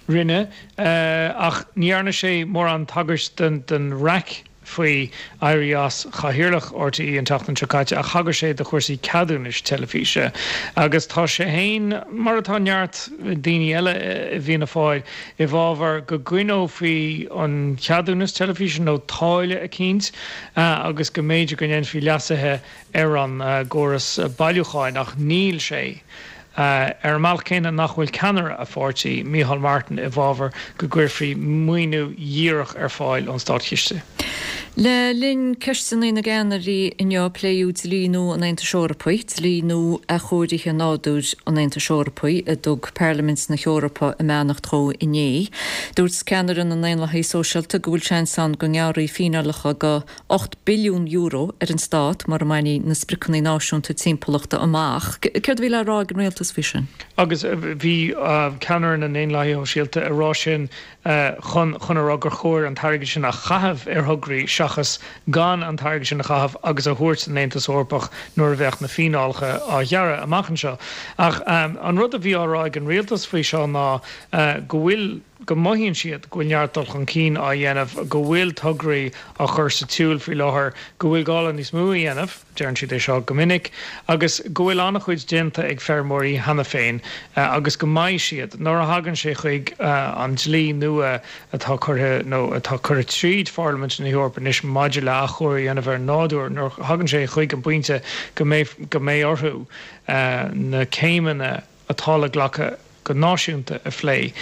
Rinne, ach ní dhearna sé mórán tagairt don raic. faoi éirí as chathaoirleach RTÉ an tseachtain seo caite ach thagair sé do chúrsaí ceadúnais teilifíse agus tá sé féin, mar atá neart daoine eile i bhFianna Fáil, i bhfabhar go gcoinneofaí an ceadúnas teilifíse nó táille eicínt agus go mb'fhéidir go ndéanfaí leasuithe ar an gcóras bailiúcháin ach níl sé Ar an mbealach céanna nach bhfuil ceannaire a pháirtí, Micheál Martin, i bhfabhar go gcuirfí maoiniú dhíreach ar fáil ón státchiste. Le linn Ceisteanna na gCeannairí inniu pléadh dlí nua an Aontais Eorpaigh, Dlí Nua Athchóirithe Nádúir an Aontais Eorpaigh, a dtug Parlaimint na hEorpa a mbeannacht dhó inné. Dúirt ceannaire na nDaonlathaithe Sóisialta go bhfuil seans ann go ngearrfaí fíneálacha go €8 billiún ar an stát mura mbainfí na spriocanna náisiúnta timpeallachta amach. Céard a bhí le rá ag an rialtas faoi sin? Agus bhí ceannaire na nDaonlathaithe Shóisialta ag rá sin chun chun a rá gur chóir an t-airgead sin a chaitheamh ar thograí seachas gan an t-airgead sin a chaitheamh agus a thabhairt don Aontas Eorpach nuair a bheadh na fíneálacha á ghearradh amach anseo. Ach an rud a bhí á rá ag an rialtas faoi seo ná go bhfuil, go mothaíonn siad go bhfuil neart dul chun cinn á dhéanamh, go bhfuil tograí á chur sa tsiúl faoi láthair, go bhfuil gá le níos mó a dhéanamh, deireann siad é seo go minic, agus go bhfuil an-chuid déanta ag feirmeoirí cheana féin agus go mbeidh siad, nuair a thagann sé chuig an dlí nua atá curtha nó atá curtha tríd Pharlaimint na hEorpa anois maidir le athchóiriú a dhéanamh ar an nádúr, nuair a thagann sé chuig an bpointe go mbeidh go mbeidh orthu na céimeanna atá le glacadh go náisiúnta a phlé,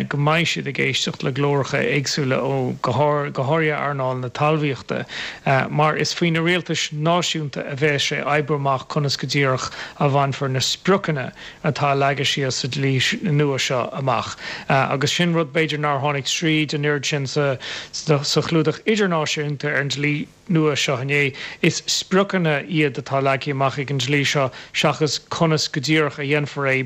go mbeidh siad ag éisteacht le glóracha éagsúla ó, go háirithe earnáil na talmhaíochta, mar is faoi na rialtais náisiúnta a bheas sé oibriú amach conas go díreach a bhainfear na spriocanna atá leagtha síos sa dlí nua seo amach. Agus sin rud b'fhéidir nár tháinig tríd an oiread sin sa chlúdach idirnáisiúnta ar an dlí. nua seo inné. Is spriocanna iad atá leagtha amach ag an dlí seo seachas conas go díreach a dhéanfar é.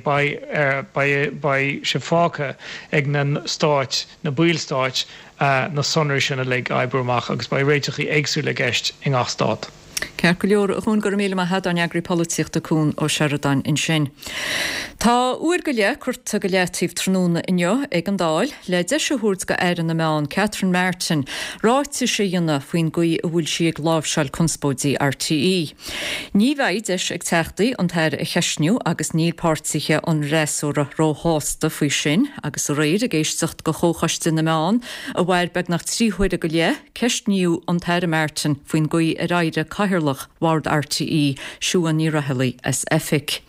Beidh beidh sé fágtha ag na stáit, na ballstáit, na sonraí sin uilig a oibriú amach agus beidh réiteachaí éagsúla i gceist i ngach stát. Ceart go leor, a Chuan, go raibh míle maith agat, ár n-eagraí polaitíochta Cuan Ó Seireadáin ansin. Tá uair go leith curtha go leataobh tráthnóna inniu ag an Dáil le deis a thabhairt do Aire na Meán Catherine Martin ráitis a dhéanamh faoin gcaoi a bhfuil sí ag láimhseáil conspóidí RTÉ. Ní bheidh deis ag Teachtaí an tAire a cheistniú agus níl páirtithe an fhreasúra róshásta faoi sin agus aréir ag éisteacht do Chomhchoiste na Meán a mhair beagnach 3 huaire go leith, Ceistníodh an tAire Martin faoin gcaoi ar éirigh Cathaoirleach Bhord RTÉ, Siún Ní Raghallaigh, as oifig.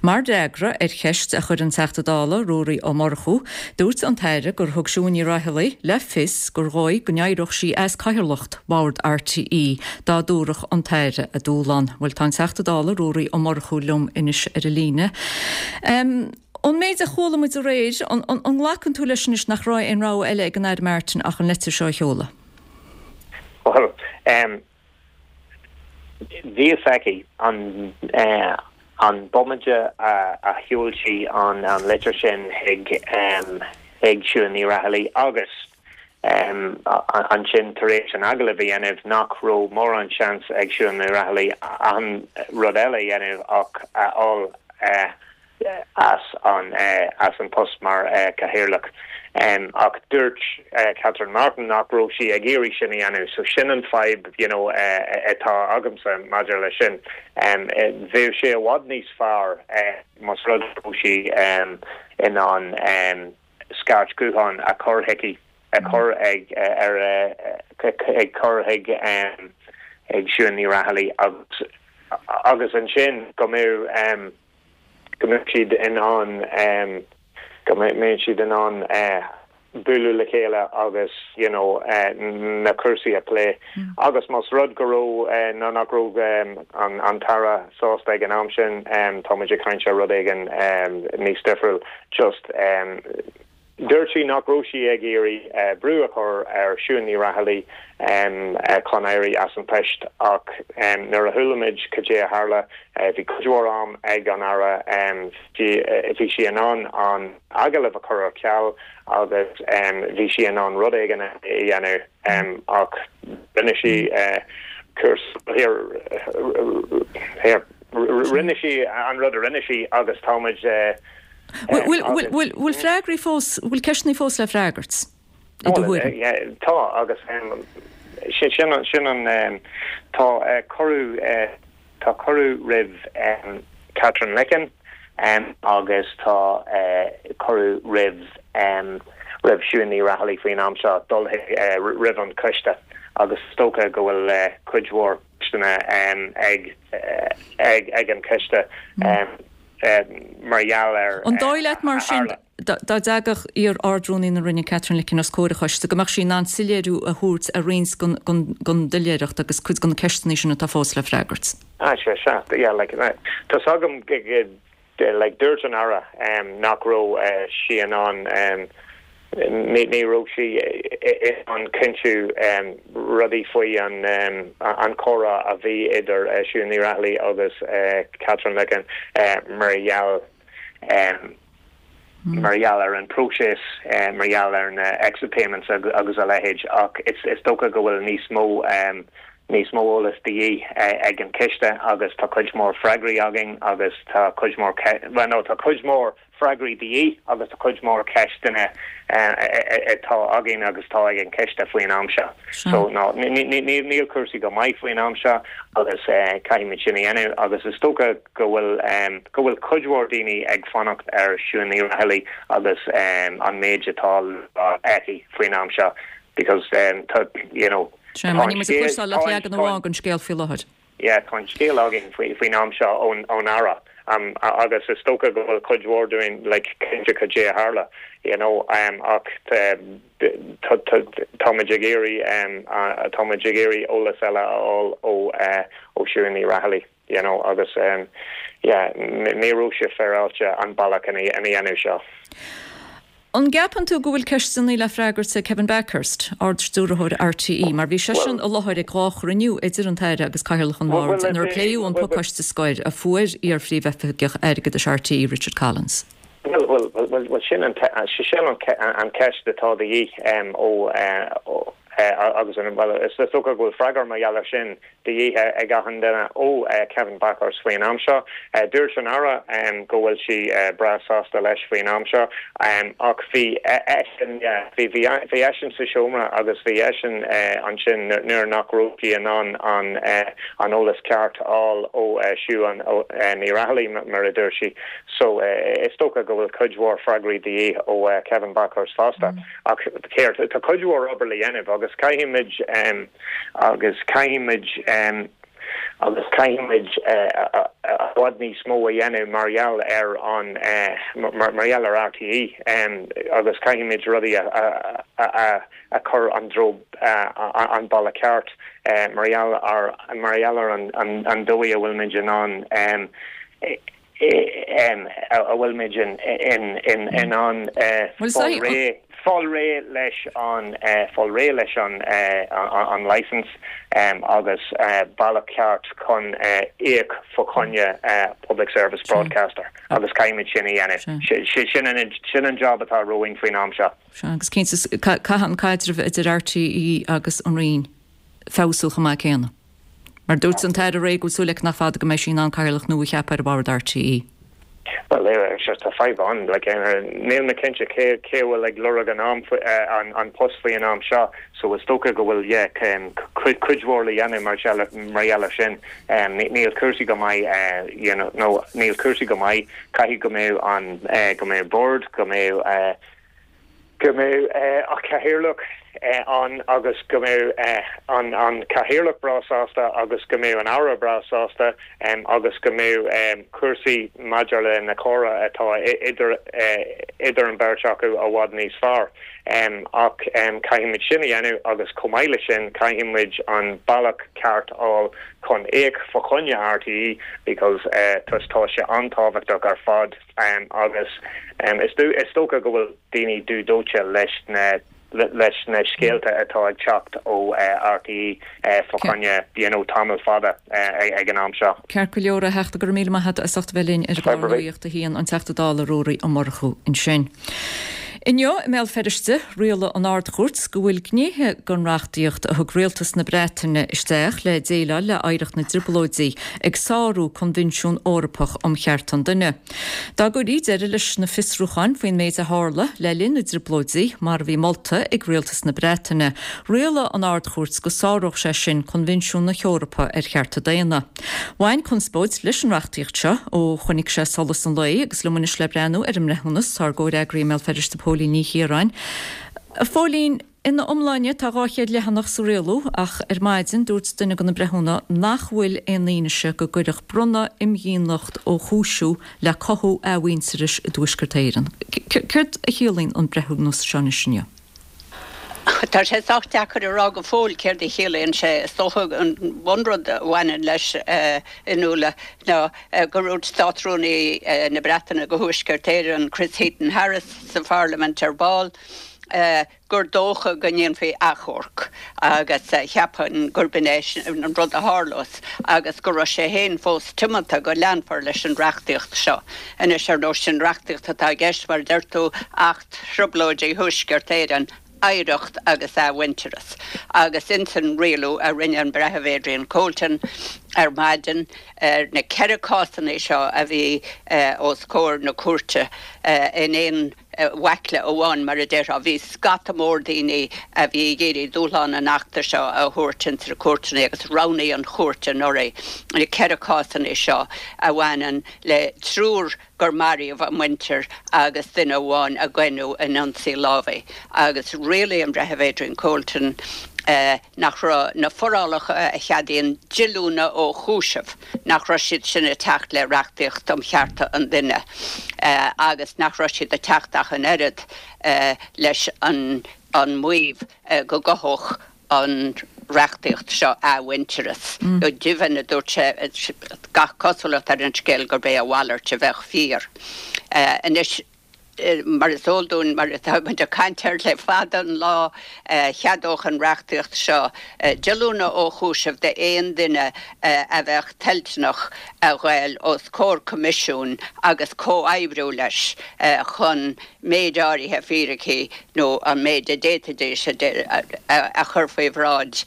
Mar fhreagra ar cheist a chuir an Teachta Dála Ruairí Ó Murchú, dúirt an tAire gur thug Siún Ní Raghallaigh le fios gur dhóigh go n-éireodh sí as cathaoirleacht Bhord RTÉ dá dtabharfadh an tAire a dúshlán. Bhuel, tá an Teachta Dála Ruairí Ó Murchú liom anois ar an líne. Ón méid a chuala muid aréir, an nglacann tú leis anois nach raibh aon rogha eile ag an Aire Martin ach an leitir seo a sheoladh? Bhuel, bhí fhios aici an an bomaite a sheol sí an litir sin chuig chuig Siún Ní Raghallaigh agus ansin tar éis an agallamh a dhéanamh nach raibh mórán seans ag Siún Ní Raghallaigh aon rud eile a dhéanamh ach a fháil as an as an post mar Chathaoirleach. Ach dúirt Catherine Martin nach raibh sí ag iarraidh sin a dhéanamh. So sin an fadhb you know atá agamsa maidir leis sin. Bheadh sé i bhfad níos fearr más rud go raibh sí in ann scairt ghutháin a chur chuici, a chur ag ar ag cur chuig ag Siún Ní Raghallaigh agus agus ansin go mbeadh go mbeadh siad in ann go mbeadh siad in ann bualadh le chéile agus you know na cúrsaí a phlé. Agus más rud go raibh nó nach raibh an an tAire sásta ag an am sin, tá muid ag caint ar rud éigin níos difriúil. Just Dúirt sí nach raibh sí ag iarraidh brú a chur ar Siún Ní Raghallaigh chun éirí as an post ach nuair a chuala muid cad é a tharla, bhí cuid mhór am ag an Aire, bhí sí in ann an agallamh a chur ar ceal agus bhí sí in ann rud éigin a dhéanamh ach rinne sí cúrsa, rinne sí an rud a rinne sí agus tá muid. Bhfuil freagraí fós, bhfuil ceisteanna fós le freagairt, i do thuairim? Tá, agus sin an, tá cuireadh, tá cuireadh roimh Katherine Licken agus tá cuireadh roimh, roimh Siún Ní Raghallaigh faoin am seo dul roimh an choiste agus is dócha go bhfuil cuid mhór ceisteanna ag, ag an choiste. mar gheall ar An dóigh leat mar sin, dá dtagadh iar-Ard-Rúnaí na Roinne Katherine Licken os comhair an choiste, go mbeadh sí in ann soiléiriú a thabhairt ar roinnt den doiléireacht agus cuid de na ceisteanna sin atá fós le freagairt? Ah, sea, sea, yeah, like, tá's agam, like, dúirt an Aire nach raibh sí in ann, Ní raibh sí in ann cinntiú rudaí faoi an chomhrá a bhí idir Siún Ní Raghallaigh agus Katherine Licken mar gheall mar gheall ar an próiseas, mar gheall ar na exit payments agus a leithéid ach is dócha go bhfuil níos mó níos mó eolas de dhíth ag an choiste agus tá cuid mhór freagraí againn agus tá cuid mhór, bhuel no tá cuid mhór freagraí de dhíth agus tá cuid mhór ceisteanna atá againn agus atá ag an choiste faoin am seo. So no, níl cúrsaí go maith faoin am seo agus caithfimid sin a dhéanamh agus is dócha go bhfuil go bhfuil cuid mhór daoine ag fanacht ar Siún Ní Raghallaigh agus an méid atá le rá aici faoin am seo because tá you know tá an scéal leagan amháin den scéal faoi láthair. Yeah, tá an scéal againn faoin am seo ón Aire agus is dócha go bhfuil cuid mhór dúinn like cinnte cad é a tharla, you know, ach táimid ag iarraidh táimid ag iarraidh eolas eile a fháil ó ó Siún Ní Raghallaigh, you know, agus yeah, ní raibh sé féaráilte an bealach ina dhéanamh seo. An gceapann tú go bhfuil ceisteanna le freagairt ag Kevin Bakhurst, Ard-Stiúrthóir RTÉ, mar bhí seisean i láthair ag 2 chruinniú idir an tAire agus Cathaoirleach an Bhoird inar pléadh an pacáiste scoir a fuair iar-Phríomhoifigeach Airgeadais RTÉ, Richard Collins? Bhuel, bhuel, bhuel, sin an sin an cheist atá de dhíth ó agus an, bhuel, is dócha go bhfuil freagra mar gheall air sin de dhíth ag achan duine ó Kevin Bakhurst faoin am seo. Dúirt an Aire go bhfuil sí breá sásta leis faoin am seo ach bhí eisean, bhí, bhí eisean sa seomra agus bhí eisean ansin nuair nach raibh sí in ann an an eolas ceart a fháil ó Siún Ní Raghallaigh mar a dúirt sí. So is dócha go bhfuil cuid mhór freagraí de dhíth ó Kevin Bakhurst fosta. Ach céard, tá cuid mhór obair le dhéanamh agus caithfimid, agus caithfimid, agus caithfimid i bhfad níos mó a dhéanamh mar gheall ar an, mar gheall ar RTÉ agus caithfimid rudaí a, a chur an dtreo, an bealach ceart mar gheall ar, mar gheall ar an dóigh a bhfuilmid in ann. a bhfuilmid in ann fáil réidh fáil réidh leis an fáil réidh leis an an licence agus bealach ceart chun íoc fá choinne public service broadcaster agus caithfimid sin a dhéanamh. Sin an sin an job atá romhainn faoin am seo. Sea, agus cinnte caithfidh an caidreamh idir RTÉ agus an Roinn feabhsú chomh maith céanna. Mar dúirt an tAire aréir go bhfuil súil aici nach fada go mbeidh sí in ann cathaoirleach nua a cheapadh ar bhord RTÉ. Bhuel, sure, tá fadhb ann. Like, níl mé cinnte cé cé a bhfuil ag lorg an am an an post faoi an am seo, so is dócha go bhfuil, yeah, cuid cuid mhór le dhéanamh mar mar gheall ar sin. Níl cúrsaí go maith, you know, nó níl cúrsaí go maith. Caithfidh go mbeadh an go mbeadh bord, go mbeadh go mbeadh an cathaoirleach ann agus go mbeadh an cathaoirleach breá sásta agus go mbeadh an Aire breá sásta agus go mbeadh cúrsaí maidir le na comhrá atá idir idir an bheirt acu i bhfad níos fearr. Ach caithfimid sin a dhéanamh agus chomh maith le sin caithfimid an bealach ceart a fháil chun íoc fá choinne RTÉ because tá sé an-tábhachtach ar fad. Agus is dócha go bhfuil daoine dubh dóite leis na leis na scéalta atá ag teacht ó RTÉ fá choinne you know tamall fada ag an am seo. Ceart go leor, a Theachta, go raibh míle maith agat as ucht a bheith linn ar an gclár Nuacht a hAon, an Teachta Dála Ruairí Ó Murchú ansin. Inniu i mBéal Feirste, rialaigh an Ard-Chúirt go bhfuil gnéithe den reachtaíocht a thug rialtas na Breataine isteach le déileáil le hoidhreacht na dTrioblóidí ag sárú Coinbhinsiún Eorpach um Chearta an Duine. Dá gcuirí deireadh leis na fiosrúcháin faoin méid a tharla le linn na dTrioblóidí, mar a bhí molta ag rialtas na Breataine, rialaigh an Ard-Chúirt go sáródh sé sin Coinbhinsiún na hEorpa ar Chearta Daonna. Bhain conspóid leis an reachtaíocht seo ó chonaic sé solas an lae agus liom anois le breathnú ar an mbreithiúnas tá ár gcomhfhreagraí i mBéal Feirste Póilín Ní Chiaráin. A Phóilín, ina iomláine tá 200 leathanach sa rialú ach ar maidin dúirt duine de na breithiúna nach bhfuil aon fhianaise go gcuirfeadh bronnadh imdhíonacht ó chúisiú le cothú athmhuintearais i dTuaisceart Éireann. Céard a chiallaíonn an breithiúnas seo anois inniu? Tá sé sách deacair a rá go fóill céard a chiallaíonn sé. Is dócha an bunrud a bhaineann leis, a Fhionnuala, ná gur dhúirt Státrúnaí na Breataine do Thuaisceart Éireann, Chris Heaton-Harris, sa Pharlaimint ar ball, gur dócha go ndéanfaí achomharc agus cheapfainn gurb in é an rud a tharlós agus go raibh sé féin fós tiomanta go leanfar leis an reachtaíocht seo. Anois, ar ndóigh, sin reachtaíocht atá i gceist, mar a deir tú, Acht Trioblóidí Thuaisceart Éireann, Oidhreacht agus Athmhuintearas, agus ins an rialú a rinne an Breitheamh Adrian Colton ar maidin ar na 14 cásanna seo a bhí os comhair na cúirte in aon bhaicle amháin, mar a déarfá. Bhí scata mór daoine a bhí ag iarraidh dúshlán an Achta seo a thabhairt ins na cúirteanna agus roghnaigh an chúirt anuraidh na 14 cásanna seo a bhaineann le triúr gur maraíodh a muintir agus duine amháin a goineadh in ionsaí lámhaigh agus rialaigh an Breitheamh Adrian Colton nach raibh na forálacha a cheadaíonn díolúine ó chúiseamh, nach raibh siad sin ag teacht le reachtaíocht um chearta an duine agus nach raibh siad ag teacht ach an oiread leis an maíomh go gcothódh an reachtaíocht seo athmhuintearas. Go deimhin, a dúirt sé, gach cosúlacht ar an scéal gurb é a mhalairt a bheadh fíor. Anois, Mar is eol dúinn, mar atá muid ag caint air le fada an lá, cheadódh an reachtaíocht seo díolúine ó chúiseamh d'aon duine a bheadh toilteanach a ghoil os comhair coimisiúin agus comhoibriú leis chun méid áirithe fíricí nó an méid a d'fhéadfaidís a chur faoi bhráid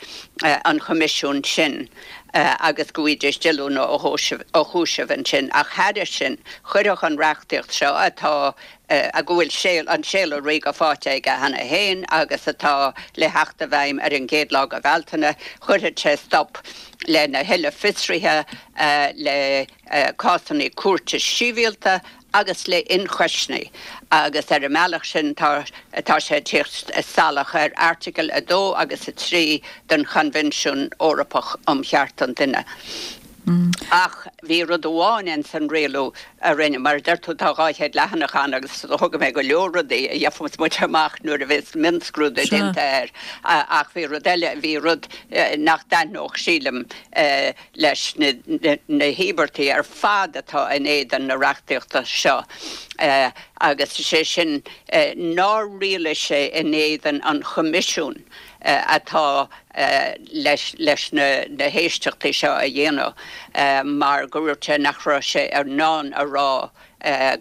an choimisiúin sin. agus go bhfaighidís díolúine ó chúiseamh ansin. Ach thairis sin, chuirfeadh an reachtaíocht seo, atá, go bhfuil an séala ríoga faighte aige cheana féin agus atá le theacht i bhfeidhm ar an gcéad lá de Bhealtaine, chuirfeadh sé stop lena thuilleadh fiosruithe, le cásanna cúirte sibhialta agus le hionchoisní agus ar an mbealach sin tá tá sé ag tíocht salach ar Airteagail 2 agus 3 den Choinbhinsiún Eorpach um Chearta an Duine. Ach bhí rud amháin ins an rialú a rinneadh, mar a deir tú tá 200 leathanach ann agus thóg mé go leor rudaí a gheobhas muid amach nuair a bheas mionscrúdú déanta air ach bhí rud eile, bhí rud nach dtaitneodh sílim leis na híobartaigh ar fad atá in éadan na reachtaíochta seo agus is é sin nár rialaigh sé in éadan an Choimisiúin atá leis na héisteachtaí seo a dhéanamh mar go dúirt sé nach raibh sé in ann a rá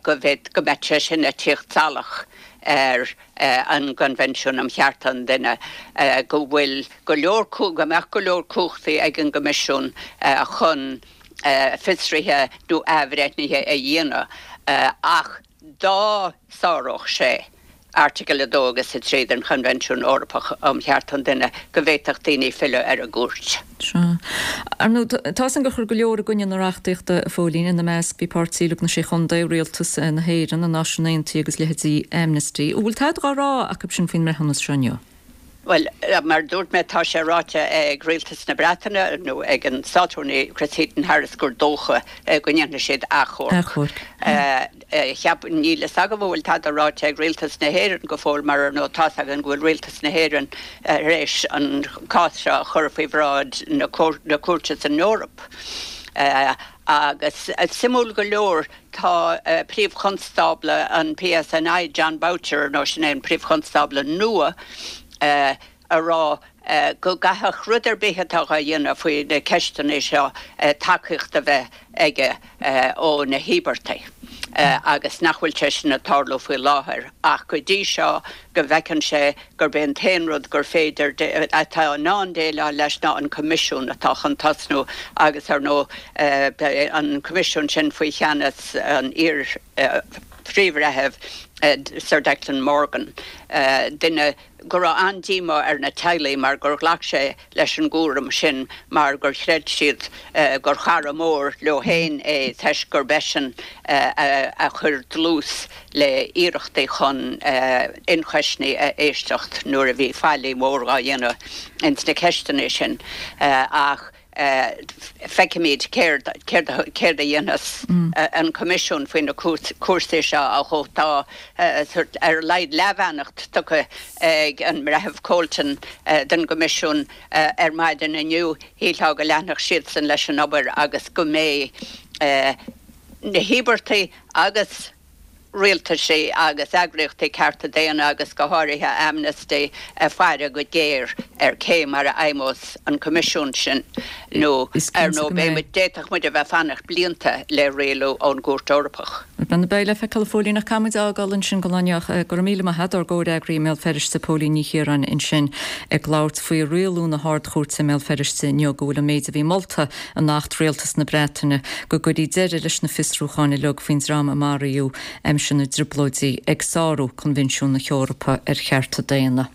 go mbeadh sé sin ag tíocht salach ar an gCoinbhinsiún um Chearta an Duine, go bhfuil go leor, go mbeadh go leor cumhachtaí ag an gCoimisiún chun fiosruithe nó athbhreithnithe a dhéanamh ach dá sáródh sé Airteagail 2 agus 3 den Choinbhinsiún Eorpach um Chearta an Duine go bhféadfadh daoine filleadh ar an gcúirt. Sea. Ar ndóigh, tá 'fhios a'm gur chuir go leor i gcoinne na reachtaíochta, a Phóilín, ina measc bhí Páirtí Lucht na Sé Chontae, Rialtas na hÉireann, na Náisiúin Aontaithe agus leithéidí Amnesty. An bhfuil tada dhá rá acu sin faoin mbreithiúnas seo inniu? Bhuel, mar a dúirt mé, tá sé ráite ag Rialtas na Breataine, nó ag an Státrúnaí Chris Heaton-Harris, gur dócha go ndéanfaidh siad achomharc. Cheap, níl fhios agam an bhfuil tada ráite ag Rialtas na hÉireann go fóill mar ar ndóigh tá's againn go bhfuil Rialtas na hÉireann tar éis an cás seo a chur faoi bhráid na cúirte san Eoraip. Agus suimiúil go leor tá Príomh-Chonstábla an PSNI, Jon Boutcher, ar ndóigh sin é an Príomh-Chonstábla nua, ag rá go gcaithfeadh rud ar bith atá á dhéanamh faoi na ceisteanna seo tacaíocht a bheith aige ó na híobartaigh agus nach bhfuil sé sin ag tarlú faoi láthair ach go dtí seo go bhfeiceann sé gurb é an t-aon rud gur féidir atá in ann déileáil leis ná an Coimisiún atá chun tosnú agus ar ndóigh beidh an Coimisiún sin faoi cheannas an iar Phríomh-Bhreithimh Sir Declan Morgan, duine go raibh an-díomá ar na teaghlaigh mar gur ghlac sé leis an gcúram sin mar gur chreid siad gur chara mór leo féin é toisc gurb eisean a chuir dlús le hiarrachtaí chun ionchoisní a éisteacht nuair a bhí faillí mhór dhá dhéanamh ins na ceisteanna sin ach Feicfimid céard céard a dhéanfas an Coimisiún faoi na cúrsaí seo ach tá sórt ar a laghad leathbheannacht tugtha ag an mBreitheamh Colton don gCoimisiún ar maidin inniu. Shílfeá go leanfadh siadsan leis an obair agus go mbeidh na híobartaigh agus rialtaisí agus eagraíochtaí cearta daonna agus go háirithe Amnesty ag faire go géar ar cé mar a fheidhmeos an Coimisiún sin nó ar ndóigh beidh muid, d'fhéadfadh muid a bheith ag fanacht blianta le rialú ón gCúirt Eorpach. Bhuel, beidh le feiceáil a Phóilín ach caithfidh muid a fhágáil ansin don lá inniu. Go raibh míle maith agat, ár gcomhfhreagraí i mBéal Feirste, Póilín Ní Chiaráin ansin ag labhairt faoi rialú na hArd-Chúirte i mBéal Feirste inniu go bhfuil an méid a bhí molta in Acht Rialtas na Breataine go gcuirfí deireadh leis na fiosrúcháin uilig faoin dream a maraíodh aimsir na dTrioblóidí ag sárú Coinbhinsiún na hEorpa ar Chearta Daonna.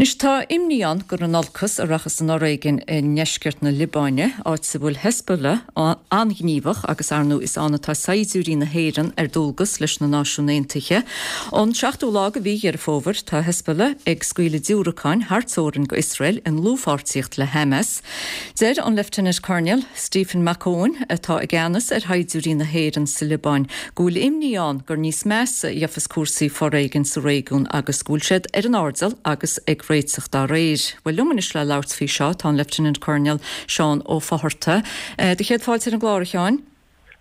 Anois tá imní ann gur in olcas a rachas an fhoréigean i ndeisceart na Liobáine, áit a bhfuil Hezbollah an-ghníomhach agus ar ndóigh is ann atá saighdiúirí na hÉireann ar dualgas leis na Náisiúin Aontaithe. Ón seachtú lá de mhí Dheireadh Fómhair tá Hezbollah ag scaoileadh diúracáin thar teorainn go Iosrael i ndlúthpháirtíocht le Hamas. Deir an Lieutenant Colonel Stephen McEowen, atá i gceannas ar shaighdiúirí na hÉireann sa Liobáin, go bhfuil imní ann gur níos measa a gheofas cúrsaí foréigin sa réigiún agus go bhfuil siad ar an airdeall agus ag réiteach dá réir. Bhuel, liom anois le labhairt faoi seo tá an Lieutenant Colonel Seán Ó Fátharta. Do chéad fáilte ar an gclár, a Sheáin.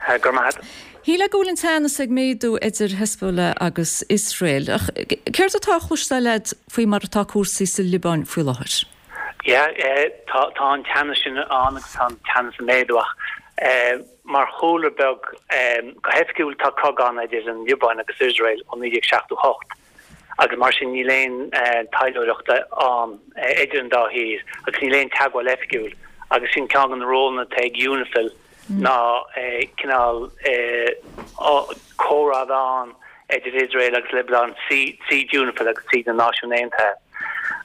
Go raibh maith agat. Shílfeá go bhfuil an teannas ag méadú idir Hezbollah agus Iosrael, ach céard atá á chloisteáil agat faoi mar atá cúrsaí sa Liobáin faoi láthair? Yeah, tá an teannas sin ann agus tá an teannas ag méadú ach mar chúlra beag, go hoifigiúil tá cogadh ann idir an Liobáin agus Iosrael ó 1978 agus mar sin níl aon taidhleoireacht ann idir an dá thír agus níl aon teagmháil oifigiúil agus sin ceann de na rólanna atá ag UNIFIL ná cineál comhrá a bheith ann idir Iosrael agus Liobáin tríd UNIFIL agus tríd na Náisiúin Aontaithe.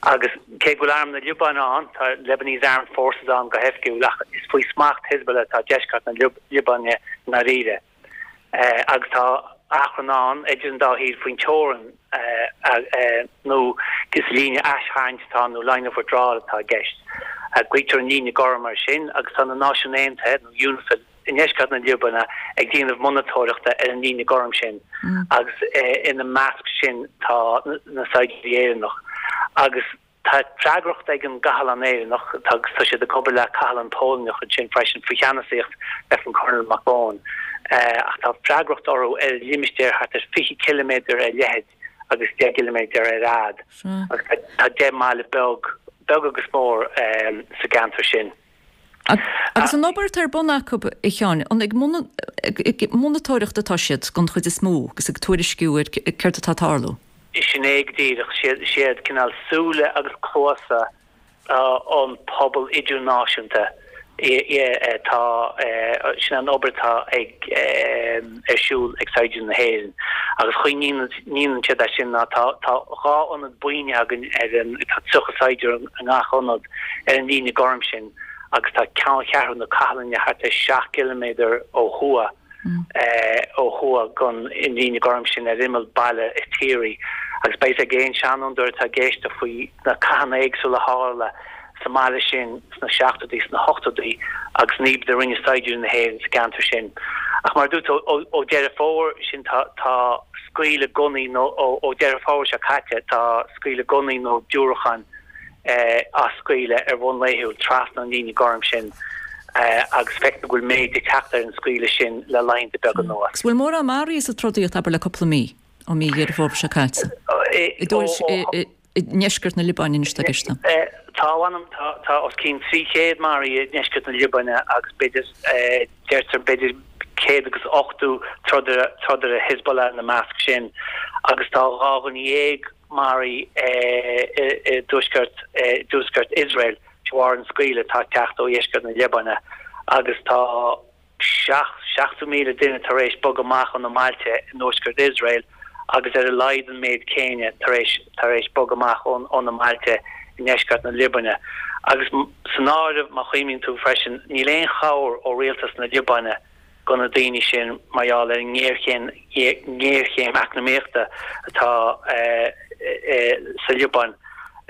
Agus cé go bhfuil Arm na Liobáine ann, tá Lebanese Armed Forces ann go hoifigiúil, ach is faoi smacht Hezbollah atá deisceart na Liobáine i ndáiríre. Agus tá achrann ann idir an dá thír faoin teorainn nó is líne aistharraingt atá ann nó line of withdrawal atá i gceist. Glaoitear an líne gorm air sin agus tá na Náisiúin Aontaithe nó UNIFIL i ndeisceart na Liobáine ag déanamh monatóireachta ar an líne gorm sin agus ina measc sin tá na saighdiúirí Éireannach agus Tá freagracht ag an gcathlán Éireannach, agus tá siad ag obair le cathlán Polainneach ansin freisin, faoi cheannasaíocht Lieutenant Colonel McBone, ach tá freagracht orthu ar limistéar thart ar 20 ciliméadar ar leithead agus 10 gciliméadar ar fhad, agus tá 10 mbaile beag, beag agus mór, sa gceantar sin. Agus an obair atá ar bun acu, a Sheáin, an ag monatóireacht atá siad den chuid is mó agus ag tuairisciú ar céard atá ag tarlú? Sin é go díreach. Siad cineál súile agus cluasa an pobal idirnáisiúnta atá, sin an obair atá ag ar siúl ag saighdiúirí na hÉireann. Agus chaoi a ndéanann siad é sin ná tá 2 ionad buíne againn ar an, tá 30 saighdiúir i ngach ionad ar an líne gorm sin agus tá ceanncheathrú na cathlainne thart ar 7 gciliméadar ó thuaidh, ó thuaidh den líne gorm sin ar imeall baile Ittiri. Agus beidh a fhios ag aon seanfhondúir atá ag éisteacht faoi na cathanna éagsúla a tharla sa mbaile sin sna seachtóidí, sna hochtóidí agus an obair a rinne saighdiúirí na hÉireann sa gceantar sin. Ach mar a dúirt tú, ó Deireadh Fómhair sin tá tá scaoileadh gunnaí nó ó Deireadh Fómhair seo caite tá scaoileadh gunnaí nó diúracáin á scaoileadh ar bhonn laethúil trasna an líne gorm sin agus feictear go bhfuil méid ag teacht ar an scaoileadh sin le laethanta beaga anuas. Agus bhfuil mórán maraithe sa trodaíocht abair le cúpla mí, ó mí Dheireadh Fómhair seo caite? I i ndeisceart na Liobáine anois atá i gceist. Tá, mh'anam, tá os cionn 300 maraithe i ndeisceart na Liobáine agus b'fhéidir, deirtear b'fhéidir 180 trodaire, trodaire Hezbollah ina measc sin agus tá 12 dhuine maraithe i dtuaisceart, i dtuaisceart Iosrael de bharr an scaoileadh atá ag teacht ó dheisceart na Liobáine agus tá 70,000 duine tar éis bogadh amach óna mbailte i dtuaisceart Iosrael agus ar a laghad an méid céanna tar éis tar éis bogadh amach óna mbailte i ndeisceart na Liobáine. Agus san áireamh, má chuimhníonn tú freisin, níl aon chabhair ó rialtas na Liobáine do na daoine sin mar gheall ar an ngéarchéim ngéarchéim eacnamaíochta atá sa Liobáin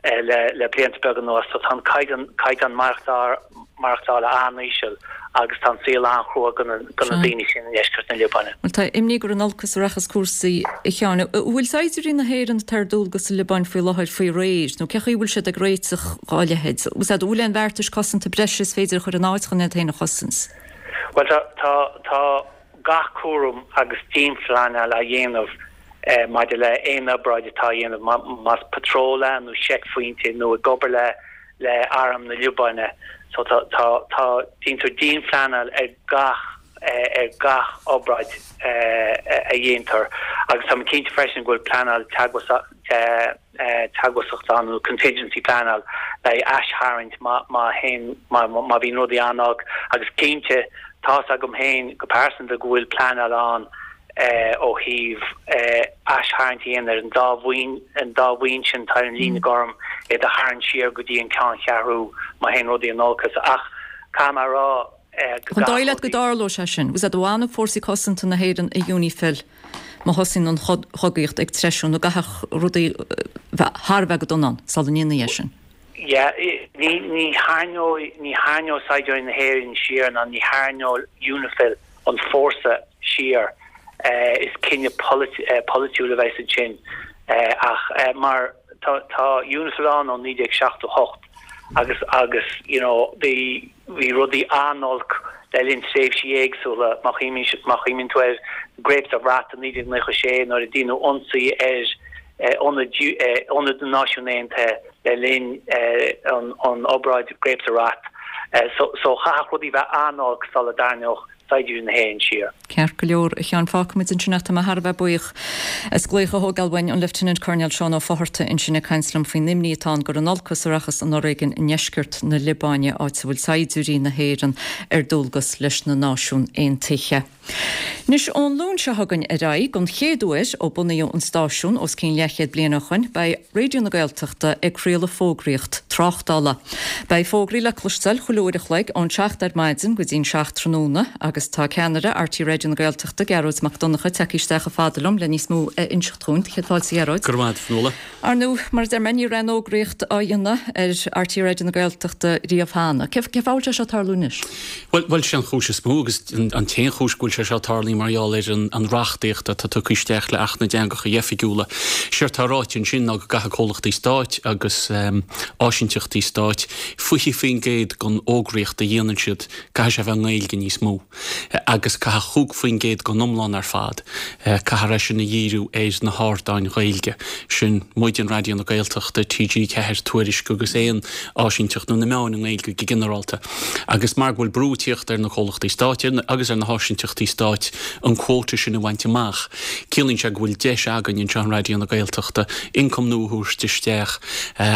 le blianta beaga anuas. So tá an caighdeán caighdeán maireachtála an-íseal agus tá an saol an-chrua do na daoine sin i ndeisceart na Liobáine. Bhuel, tá imní gur in olcas a rachas cúrsaí, a Sheáin. An bhfuil saighdiúirí na hÉireann atá ar dualgas sa Liobáin faoi láthair faoi réir, nó cé chaoi a bhfuil siad ag réiteach dhá leithéid? An bhfuil aon bheartais cosanta breise is féidir a chur in áit chun iad féin a chosaint? Bhuel, tá, tá, tá gach cúram agus dianphleanáil á dhéanamh maidir le aon obráid atá á dhéanamh, más patról é nó seicphointe nó ag obair le le arm na Liobáine. So tá, tá, tá, déantar dianphleanáil ar gach, ar gach obráid a dhéantar agus tá mé cinnte freisin go bhfuil pleanáil teagmhasachta ann nó contingency pleanáil le haghaidh aistharraingt má, má théann, má, má bhíonn rudaí an-olc agus cinnte tá's agam féin go pearsanta go bhfuil pleanáil ann ó thaobh aistharraingt a dhéanamh ar an dá bhuíon, an dá bhuíon sin atá ar an líne gorm, iad a tharraingt siar go dtí an ceanncheathrú má théann rudaí in olcas. Ach caithfidh mé a rá go An dóigh leat go dtarlóidh sé sin? Bhfuil a fhios agat an bhfanfaidh fórsaí cosanta na hÉireann i UNIFIL má thosaíonn an chogaíocht ag treisiú nó an gcaithfeadh rudaí bheith thar a bheith go dona ann sula ndéanfaí é sin? Yeah, ní, ní tharraingeoidh, ní tharraingeoidh saighdiúirí na hÉireann siar ná ní tharraingeoidh UNIFIL an fórsa siar. Is cinneadh polaitiúil a bheas ansin. Ach mar tá, tá UNIFIL ann ó 1978 agus, agus you know bhí, bhí rudaí an-olc. le linn tréimhsí éagsúla. Má chuimhníonn tú ar Grapes of Wrath i 1996 nuair a déanadh ionsaí ar ionad na Náisiún Aontaithe le linn an obráid Grapes of Wrath. So chaithfeadh rudaí bheith an-olc sula dtarraingeodh saighdiúirí na hÉireann siar. Ceart go leor, a Sheáin, fágfaimid ansin é. Tá mé thar a bheith buíoch as glaoch a thógáil uainn, an Lieutenant Colonel Seán Ó Fátharta ansin ag caint liom faoin imní atá ann gur in olcas a rachas an fhoréigean i ndeisceart na Liobáine, áit a bhfuil saighdiúirí na hÉireann ar dualgas leis na Náisiún Aontaithe. Anois, ón Luan seo chugainn ar aghaidh, don chéad uair ó bunaíodh an stáisiún os cionn leathchéad bliain ó shoin, beidh Raidió na Gaeltachta ag craoladh fógraíocht tráchtála. Beidh fógraí le cloisteáil chuile uair a chloig ón 7 ar maidin go dtí'n 7 tráthnóna agus tá ceannaire RTÉ Raidió na Gaeltachta, Gearóid Mac Donncha, tagtha isteach chomh fada liom le níos mó a inseacht dhúinn. Céad fáilte, a Ghearóid. Go raibh maith agat, a Fionnuala. Ar ndóigh, mar a deir mé, ní raibh aon fhógraíocht á dhéanamh ar RTÉ Raidió na Gaeltachta riamh cheana. Cén fáth a bhfuil sé seo ag tarlú anois? Bhuel, bhuel, sé an chúis is mó agus an t-aon chúis go bhfuil sé seo ag tarlú mar gheall ar an reachtaíocht atá tugtha isteach le Acht na dTeangacha Oifigiúla. Séard tá ráite ansin ná go gcaithfidh comhlachtaí stáit agus áisinteachtaí stáit 20% den fhógraíocht a dhéanann siad, caithfidh sé a bheith i nGaeilge níos mó. agus caithfidh 5% den iomlán ar fad, caithfear é sin a dhíriú ar na hardáin Ghaeilge. Sin muid, Raidió na Gaeltachta, TG4, Tuairisc agus aon áisinteacht nó na meáin i nGaeilge go ginearálta. Agus mar go bhfuil brú ag tíocht ar na comhlachtaí stáit agus ar na háisinteachtaí stáit an quota sin a bhaint amach, ciallaíonn sé go bhfuil deis againn anseo in Raidió na Gaeltachta ioncam nua a thabhairt isteach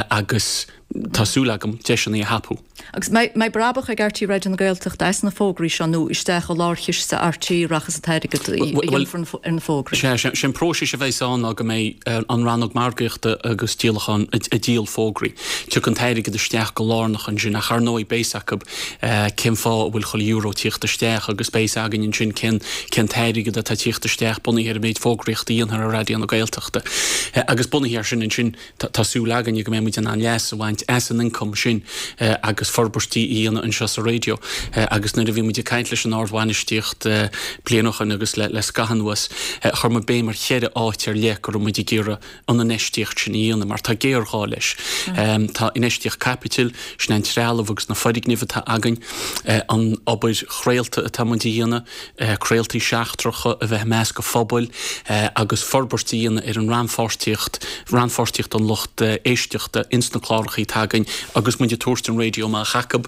agus tá súil agam deiseanna a thapú. Agus mbeidh brabach ag RTÉ Raidió na Gaeltachta as na fógraí seo nó isteach i lárchiste RTÉ a rachas an t-airgead a dhéanfar ar na fógraí? Sea, sé an próiseas a bheas ann ná go mbeidh an rannóg margaíochta agus díolacháin ag díol fógraí. Tiocfaidh an t-airgead isteach go lárnach ansin ach ar ndóigh beidh 's acu cén fáth a bhfuil chuile euro ag tíocht isteach agus beidh 's againn ansin cén cén t-airgead atá ag tíocht isteach bunaithe ar an méid fógraíochta a dhéanfar ar Raidió na Gaeltachta. Agus bunaithe ar sin ansin Tá súil againne go mbeidh muid in ann leas a bhaint as an ioncam sin agus forbairtí a dhéanamh anseo sa raidió. Agus nuair a bhí muid ag caint leis an ardbhainistíocht bliain ó shoin agus le scaitheamh anuas, chuir muid béim ar cheithre áit ar leith go raibh muid ag iarraidh an infheistíocht sin a dhéanamh mar tá géarghá leis. Tá infheistíocht caipitil, sin an trealamh agus na foirgnimh atá againn, an obair chraolta atá muid a dhéanamh, craoltaí seachtracha a bheith i measc an phobail agus forbairt a dhéanamh ar an rannpháirtíocht, rannpháirtíocht an lucht éisteachta ins na clárachaí atá againn agus muid ag tabhairt an raidió amach acu.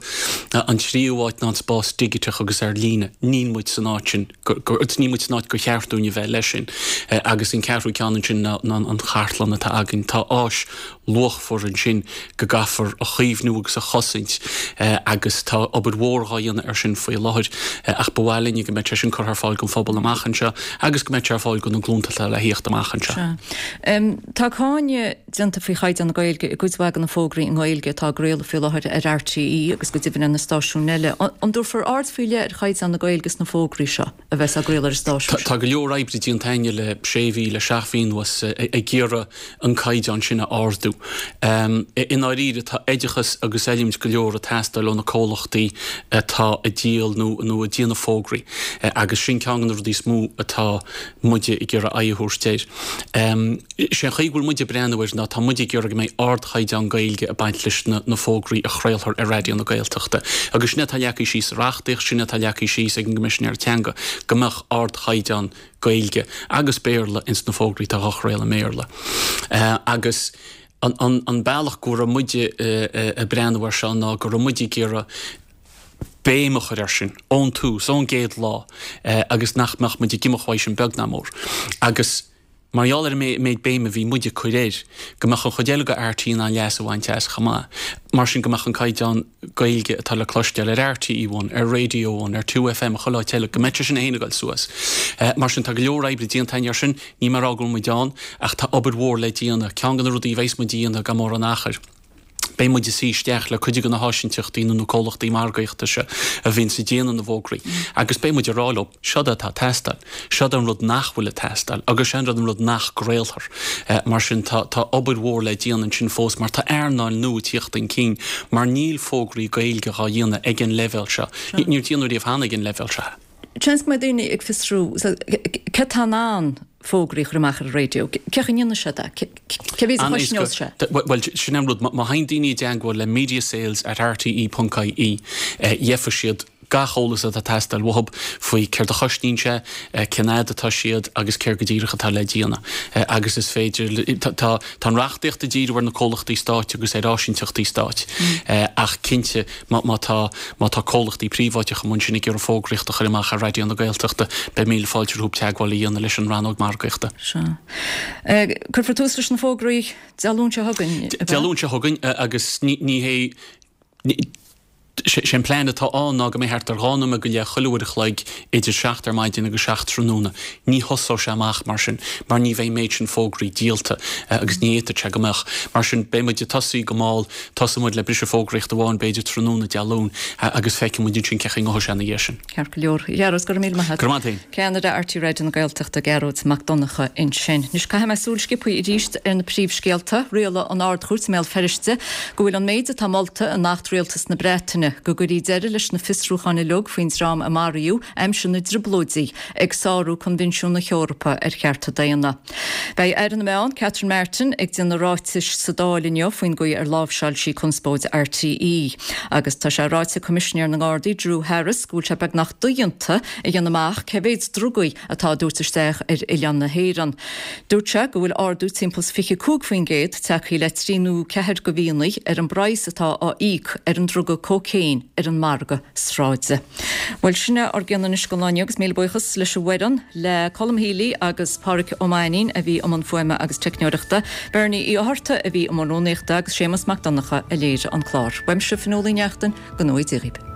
An tríú háit ná an spás digiteach agus ar líne. Níl muid san áit sin, níl muid san áit gur cheart dúinn a bheith leis sin. Agus an ceathrú ceann ansin ná an chartlann atá againn. Tá áis luachmhar ansin go gcaithfear a chaomhnú agus a chosaint agus tá obair mhór dhá dhéanamh ar sin faoi láthair ach ba mhaith linne go mbeadh sé sin curtha ar fáil don phobal amach anseo agus go mbeadh sé ar fáil do na glúnta atá le thíocht amach anseo. Sea. Tá cáineadh déanta faoi chaighdeán na Gaeilge i gcuid mhaith de na fógraí i nGaeilge atá á gcraoladh faoi láthair ar RTÉ agus go deimhin ar na stáisiúin eile. An dtabharfar aird faoi leith ar chaighdeán na Gaeilge sna fógraí seo? a bheas á gcraoladh ar an stáisiún seo. Tá go leor oibre déanta againne le sé mhí, le seacht mhí anuas ag iarraidh an caighdeán sin a ardú. I ndáiríre tá oideachas agus oiliúint go leor ag teastáil ó na comhlachtaí atá ag díol nó nó ag déanamh fógraí agus sin ceann de na rudaí is mó atá muide ag iarraidh aghaidh a thabhairt air. Sé an chaoi go bhfuil muid ag breathnú air ná tá muid ag iarraidh go mbeidh ardchaighdeán Gaeilge ag baint leis na fógraí a chraolfar ar Raidió na Gaeltachta. Agus sin é atá leagtha síos sa reachtaíocht, sin é atá leagtha síos ag an gCoimisinéir Teanga, go mbeadh ardchaighdeán Gaeilge agus Béarla ins na fógraí atá á chraoladh i mBéarla. Agus an bealach go raibh muide ag breathnú air seo ná go raibh muid ag iarraidh béim a chur air sin ón tús, ón gcéad lá, agus nach mbeadh muid ag imeacht uaidh sin beag ná mór. Agus. Mar gheall ar an méid béime a bhí muid ag cur air, go mbeadh an chuid eile de RTÉ in ann leas a bhaint as chomh maith. Mar sin, go mbeadh an caighdeán Gaeilge atá le cloisteáil ar RTÉ One, ar Radio One, ar 2FM, chuile áit eile, go mbeadh sé sin féin ag dul suas. Mar sin, tá go leor oibre déanta againn air sin, níl mé ag rá go bhfuil muid ann, ach tá obair mhór le déanamh. Ceann de na rudaí a bheas muid a dhéanamh gan mórán achair. Beidh muid ag suí isteach le cuid de na háisinteachtaí nó na comhlachtaí margaíochta seo a bhíonns ag déanamh na bhfógraí agus beidh muid ag rá leo, seod é atá ag teastáil, seod é an rud nach bhfuil ag teastáil agus seo an rud an rud nach gcraolfar. Mar sin tá tá obair mhór le déanamh ansin fós mar tá earnáil nua ag tíocht chun cinn mar níl fógraí Gaeilge dhá dhéanamh ag an leibhéal seo. Níor déanadh riamh cheana ag an leibhéal seo. Seans go mbeidh daoine ag fiosrú cé atá in ann fógraí a chur amach ar an raidió. Cén chaoi a ndéanann siad é? Cé mhéad a chosnós sé? Bhuel, sin an rud. Má théann daoine i dteagmháil le mediasales at rte ponc ie, gheofa siad. gach eolas atá ag teastáil uathub faoi céard a chosnaíonn sé, cén fhad atá siad agus céard go díreach atá le déanamh. Agus is féidir, tá an reachtaíocht ag díriú ar na comhlachtaí stáit agus ar áisínteachtaí stáit ach cinnte má tá, má tá comhlachtaí príobháideacha amuigh ansin ag iarraidh fógraíocht a chur amach ar Raidió na Gaeltachta, beidh míle fáilte rompu teagmháil a dhéanamh leis an rannóg margaíochta. Sea. Cuirfear tús leis na fógraí Dé Luain seo chugainn, ab ea? Dé Luain seo chugainn agus ní hé, Sé an plean atá ann ná go mbeidh thart ar dhá nóiméad go leith chuile uair a chloig idir 7 ar maidin agus 7 tráthnóna. Ní thosóidh sé amach mar sin mar ní bheidh an méid sin fógraí díolta agus ní fhéadfadh sé go mbeadh. Mar sin beidh muid ag tosaí go mall, tosóidh muid le briseadh fógraíochta amháin b'fhéidir tráthnóna Dé Luain agus feicfidh muid ansin cén chaoi a ngabhfaidh sé ina dhiaidh sin. Ceart go leor. A Ghearóid, go raibh míle maith agat. Go raibh maith agat féin. Ceannaire RTÉ Raidió na Gaeltachta, Gearóid Mac Donncha ansin. Anois caithfidh mé súil sciobtha arís ar na príomhscéalta. Rialaigh an Ard-Chúirt i mBéal Feirste go bhfuil an méid atá molta in Acht Rialtas na Breataine, go gcuirfí deireadh leis na fiosrúcháin uilig faoin dream a maraíodh aimsir na dTrioblóidí, ag sárú Coinbhinsiún na hEorpa ar Chearta Daonna. Beidh Aire na Meán, Catherine Martin, ag déanamh ráitis sa Dáil inniu faoin gcaoi ar láimhseáil sí conspóid RTÉ. Agus tá sé ráite ag Coimisinéir na nGardaí, Drew Harris, go bhfuil sé beagnach dodhéanta a dhéanamh amach cé mhéad drugaí atá á dtabhairt isteach ar oileán na hÉireann. Dúirt sé go bhfuil ardú timpeall is 25% tagtha le trí nó ceathair de mhíonna ar an bpraghas atá á íoc ar an druga cócaon ar an margadh sráide. Bhuel, sin é ár gcion anois don lá inniu agus míle buíochas leis an bhfoireann, le Colm Healy agus Pádhraic Ó Mainnín a bhí i mbun fuaime agus teicneoireachta, Bernie Uí Fhátharta a bhí i mbun rúnaíochta agus Séamus Mac Donncha a léirigh an clár. Uaimse, Fionnuala Ní Neachtain, go ngnóthaí Dia dhaoibh.